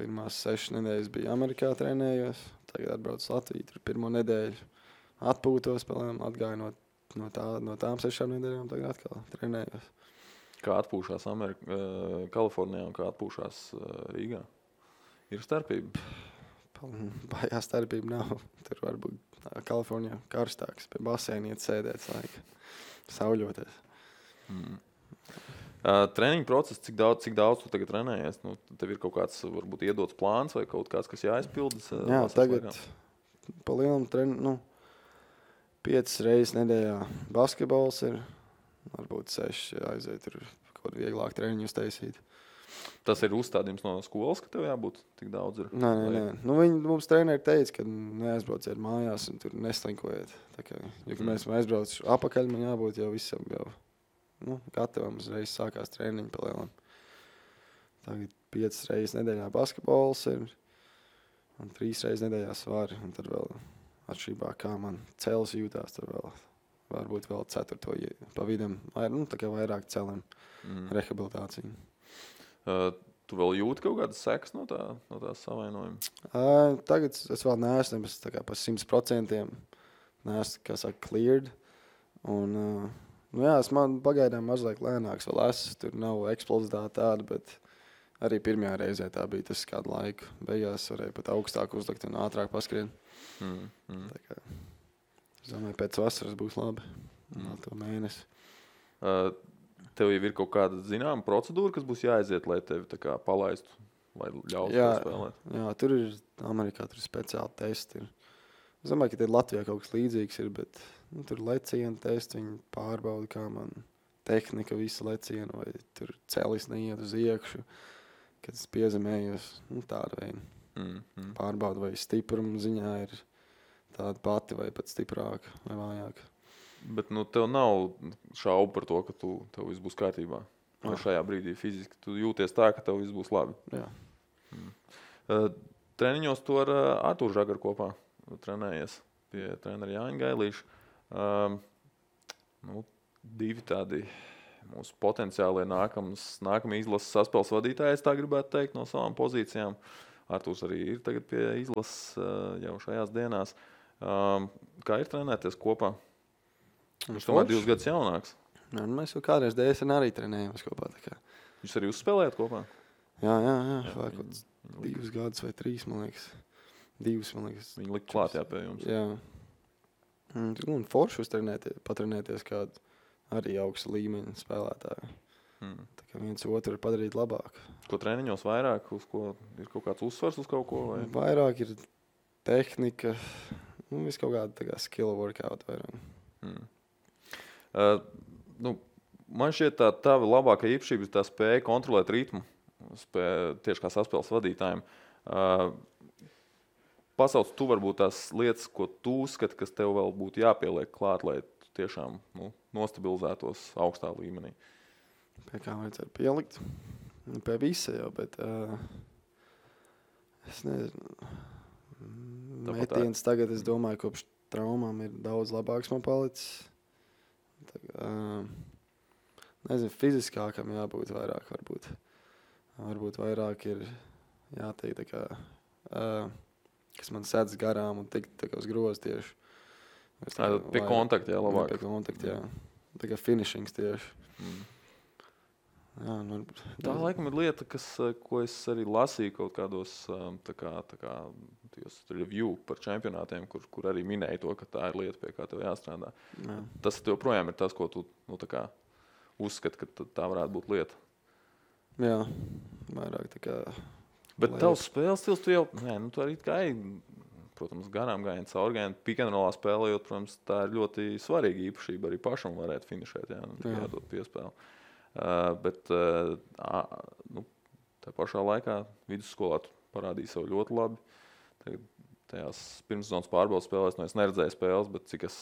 Pirmās 6 nedēļas bija Amerikā trenējos. Tagad atbraucu Latviju, tur pirmo nedēļu atpūtos, atgāju no tām 6 nedēļām, tagad atkal trenējos. Kā atpūšās Kalifornijā un kā atpūšās Rīgā? Ir starpība? Baigā starpība nav. Tur varbūt Kalifornijā karstāks, pie baseina iet sēdēt laika, sauļoties. Treniņu process, cik daudz tu tagad trenējies? Tev ir kaut kāds, varbūt, iedots plāns vai kaut kāds, kas jāizpildas? Jā, tagad pa lielam 5 reizes nedēļā basketbols ir, varbūt 6 aiziet tur kaut vieglāk treniņus taisīt. Tas ir uzstādījums no skolas, ka tev jābūt tik daudz? Nē. Mums treneri teica, ka neaizbrauciet mājās un tur neslinkojiet. Ja mēs aizbraucu apakaļ, man jābūt jau visam jau. Gatavam uzreiz sākās treniņi pa lielam. Tagad 5 reizes nedēļā basketbols ir un 3 reizes nedēļā svari. Un tad vēl atšķirībā, kā man cels jūtās, tad vēl varbūt vēl 4. pa vidam. Tā kā vairāk celim rehabilitāciju. Tu vēl jūti kaut kādas sekas no tās savainojuma? Tagad es vēl neesmu pa 100%. Neesmu, kā saka, cleared. Un es man pagaidām mazliet lēnāks vēl esmu. Tur nav eksplozitāte tāda, bet arī pirmajā reizē tā bija tas kādu laiku. Beigās varēja pat augstāk uzlikt un ātrāk paskrien. Tā kā, es domāju, pēc vasaras būs labi. To mēnesi. Tev jau ir kaut kāda zināma procedūra, kas būs jāaiziet, lai tevi tā kā palaistu vai ļautu spēlēt? Jā, tur ir Amerikā tur speciāli testi. Es domāju, ka Latvijā kaut kas līdzīgs ir, bet tur lecienu testi, viņi pārbauda, kā man tehnika visu lecienu, vai tur celis neiet uz iekšu, kad es piezemējos, tāda veida. Pārbauda, vai stipruma ziņā ir tāda pati, vai pat stiprāka, vai vājāka. Bet tev nav šaubu par to, ka tev viss būs kārtībā. Šajā brīdī fiziski tu jūties tā, ka tev viss būs labi. Jā. Treniņos tu ar Artūru Žagaru kopā trenējies pie trenera Jāņa Gailīša. 2 tādi mūsu potenciālie nākamie izlases saspēles vadītāji, es tā gribētu teikt, no savām pozīcijām. Artūrs arī ir tagad pie izlases jau šajās dienās. Kā ir trenēties kopā? Viņš tomēr 2 gadus jaunāks. Nu, mēs jau kādreiz DSN arī trenējamies kopā. Jūs arī uzspēlējat kopā? Jā. Vai kaut kāds 2 gadus vai 3, man liekas. 2, man liekas. Viņi lika klāt pie jums. Jā. Un forši patrenēties kādu arī augsta līmeņa spēlētāju. Tā kā viens otru ir padarīt labāk. Ko treniņos vairāk? Uz ko ir kaut kāds uzsvars uz kaut ko? Vai? Vairāk ir tehnika, viss kaut kāda tā kā skill workout vairāk. Man šķiet tā tava labākā īpašība ir tā spēja kontrolēt ritmu, tieši kā saspēles vadītājiem. Pasauc tu varbūt tās lietas, ko tu uzskati, kas tev vēl būtu jāpieliek klāt, lai tu tiešām nostabilizētos augstā līmenī. Pie kā vajadzētu pielikt? Pie visa jau, bet es nezinu. Metiens tagad, es domāju, kopš traumām ir daudz labāks man palicis. Nezinu, fiziskākam jābūt vairāk varbūt. Varbūt vairāk ir jāteikt tā kā, kas man sēdz garām un tikt tā kā uz grozu tieši. Pie kontakta, jā, labāk. Pie kontakta, jā. Tā kā finishings tieši. Jā, tā laikam ir lieta, ko es arī lasīju kaut kādos tā kā review par čempionātiem, kur arī minēja to, ka tā ir lieta, pie kā tev jāstrādā. Jā. Tas joprojām ir tas, ko tu tā kā uzskati, ka tā varētu būt lieta. Jā, vairāk tā kā... Bet tavs spēles stils, tu jau, tu arī kā protams, garām gājienu, caurgājienu, pick-and-rollā spēlējot, protams, tā ir ļoti svarīga īpašība, arī pašam varētu finišēt, jādod piespēli. Bet tā pašā laikā vidusskolā tu parādīji sev ļoti labi. Tajās pirmssezonas pārbaudas spēlēs, es neredzēju spēles, bet cik es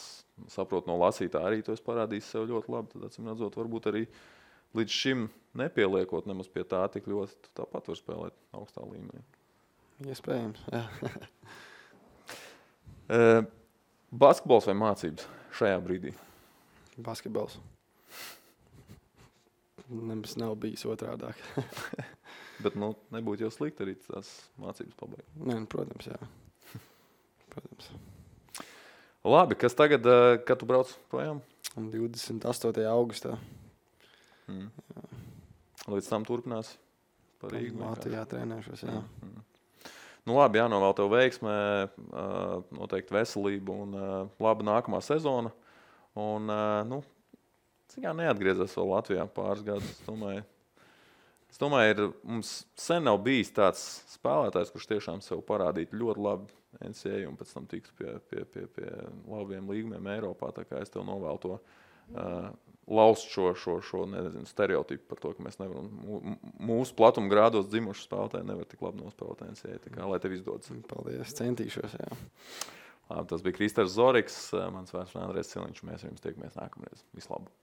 saprotu no lasītā arī tu esi parādījis sev ļoti labi. Tad, acīm redzot, varbūt arī līdz šim nepieliekot nemaz pie tā tik ļoti, tu tāpat var spēlēt augstā līmenī. Iespējams, jā. Basketbols vai mācības šajā brīdī? Basketbols. Nemaz nav bijis otrādāk. Bet nebūtu jau slikti arī tās mācības pabeigt. Nē, protams, jā. Protams. Labi, kas tagad, kad tu brauc projām? 28. augustā. Līdz tam turpinās par Rīgu? Latvijā trenēšos, jā. Labi, jānovēl tev veiksmē, noteikti veselību un laba nākamā sezona. Un, cik kā neatgriezās vēl Latvijā pāris gadus, es domāju, mums sen nav bijis tāds spēlētājs, kurš tiešām sev parādītu ļoti labi NCAA un pēc tam tiktu pie labiem līgumiem Eiropā. Tā kā es tev novēlu to laust šo stereotipu par to, ka mēs nevaram, mūsu platuma grādos dzimuši spēlētāji nevar tik labi nospēlēt NCAA. Tā kā, lai tev izdodas. Paldies, centīšos, jā. Labi, tas bija Kristers Zoriks, mans vārds Andrejs Ciliņš, mēs ar jums tiekamies nākamreiz. Vislabāk!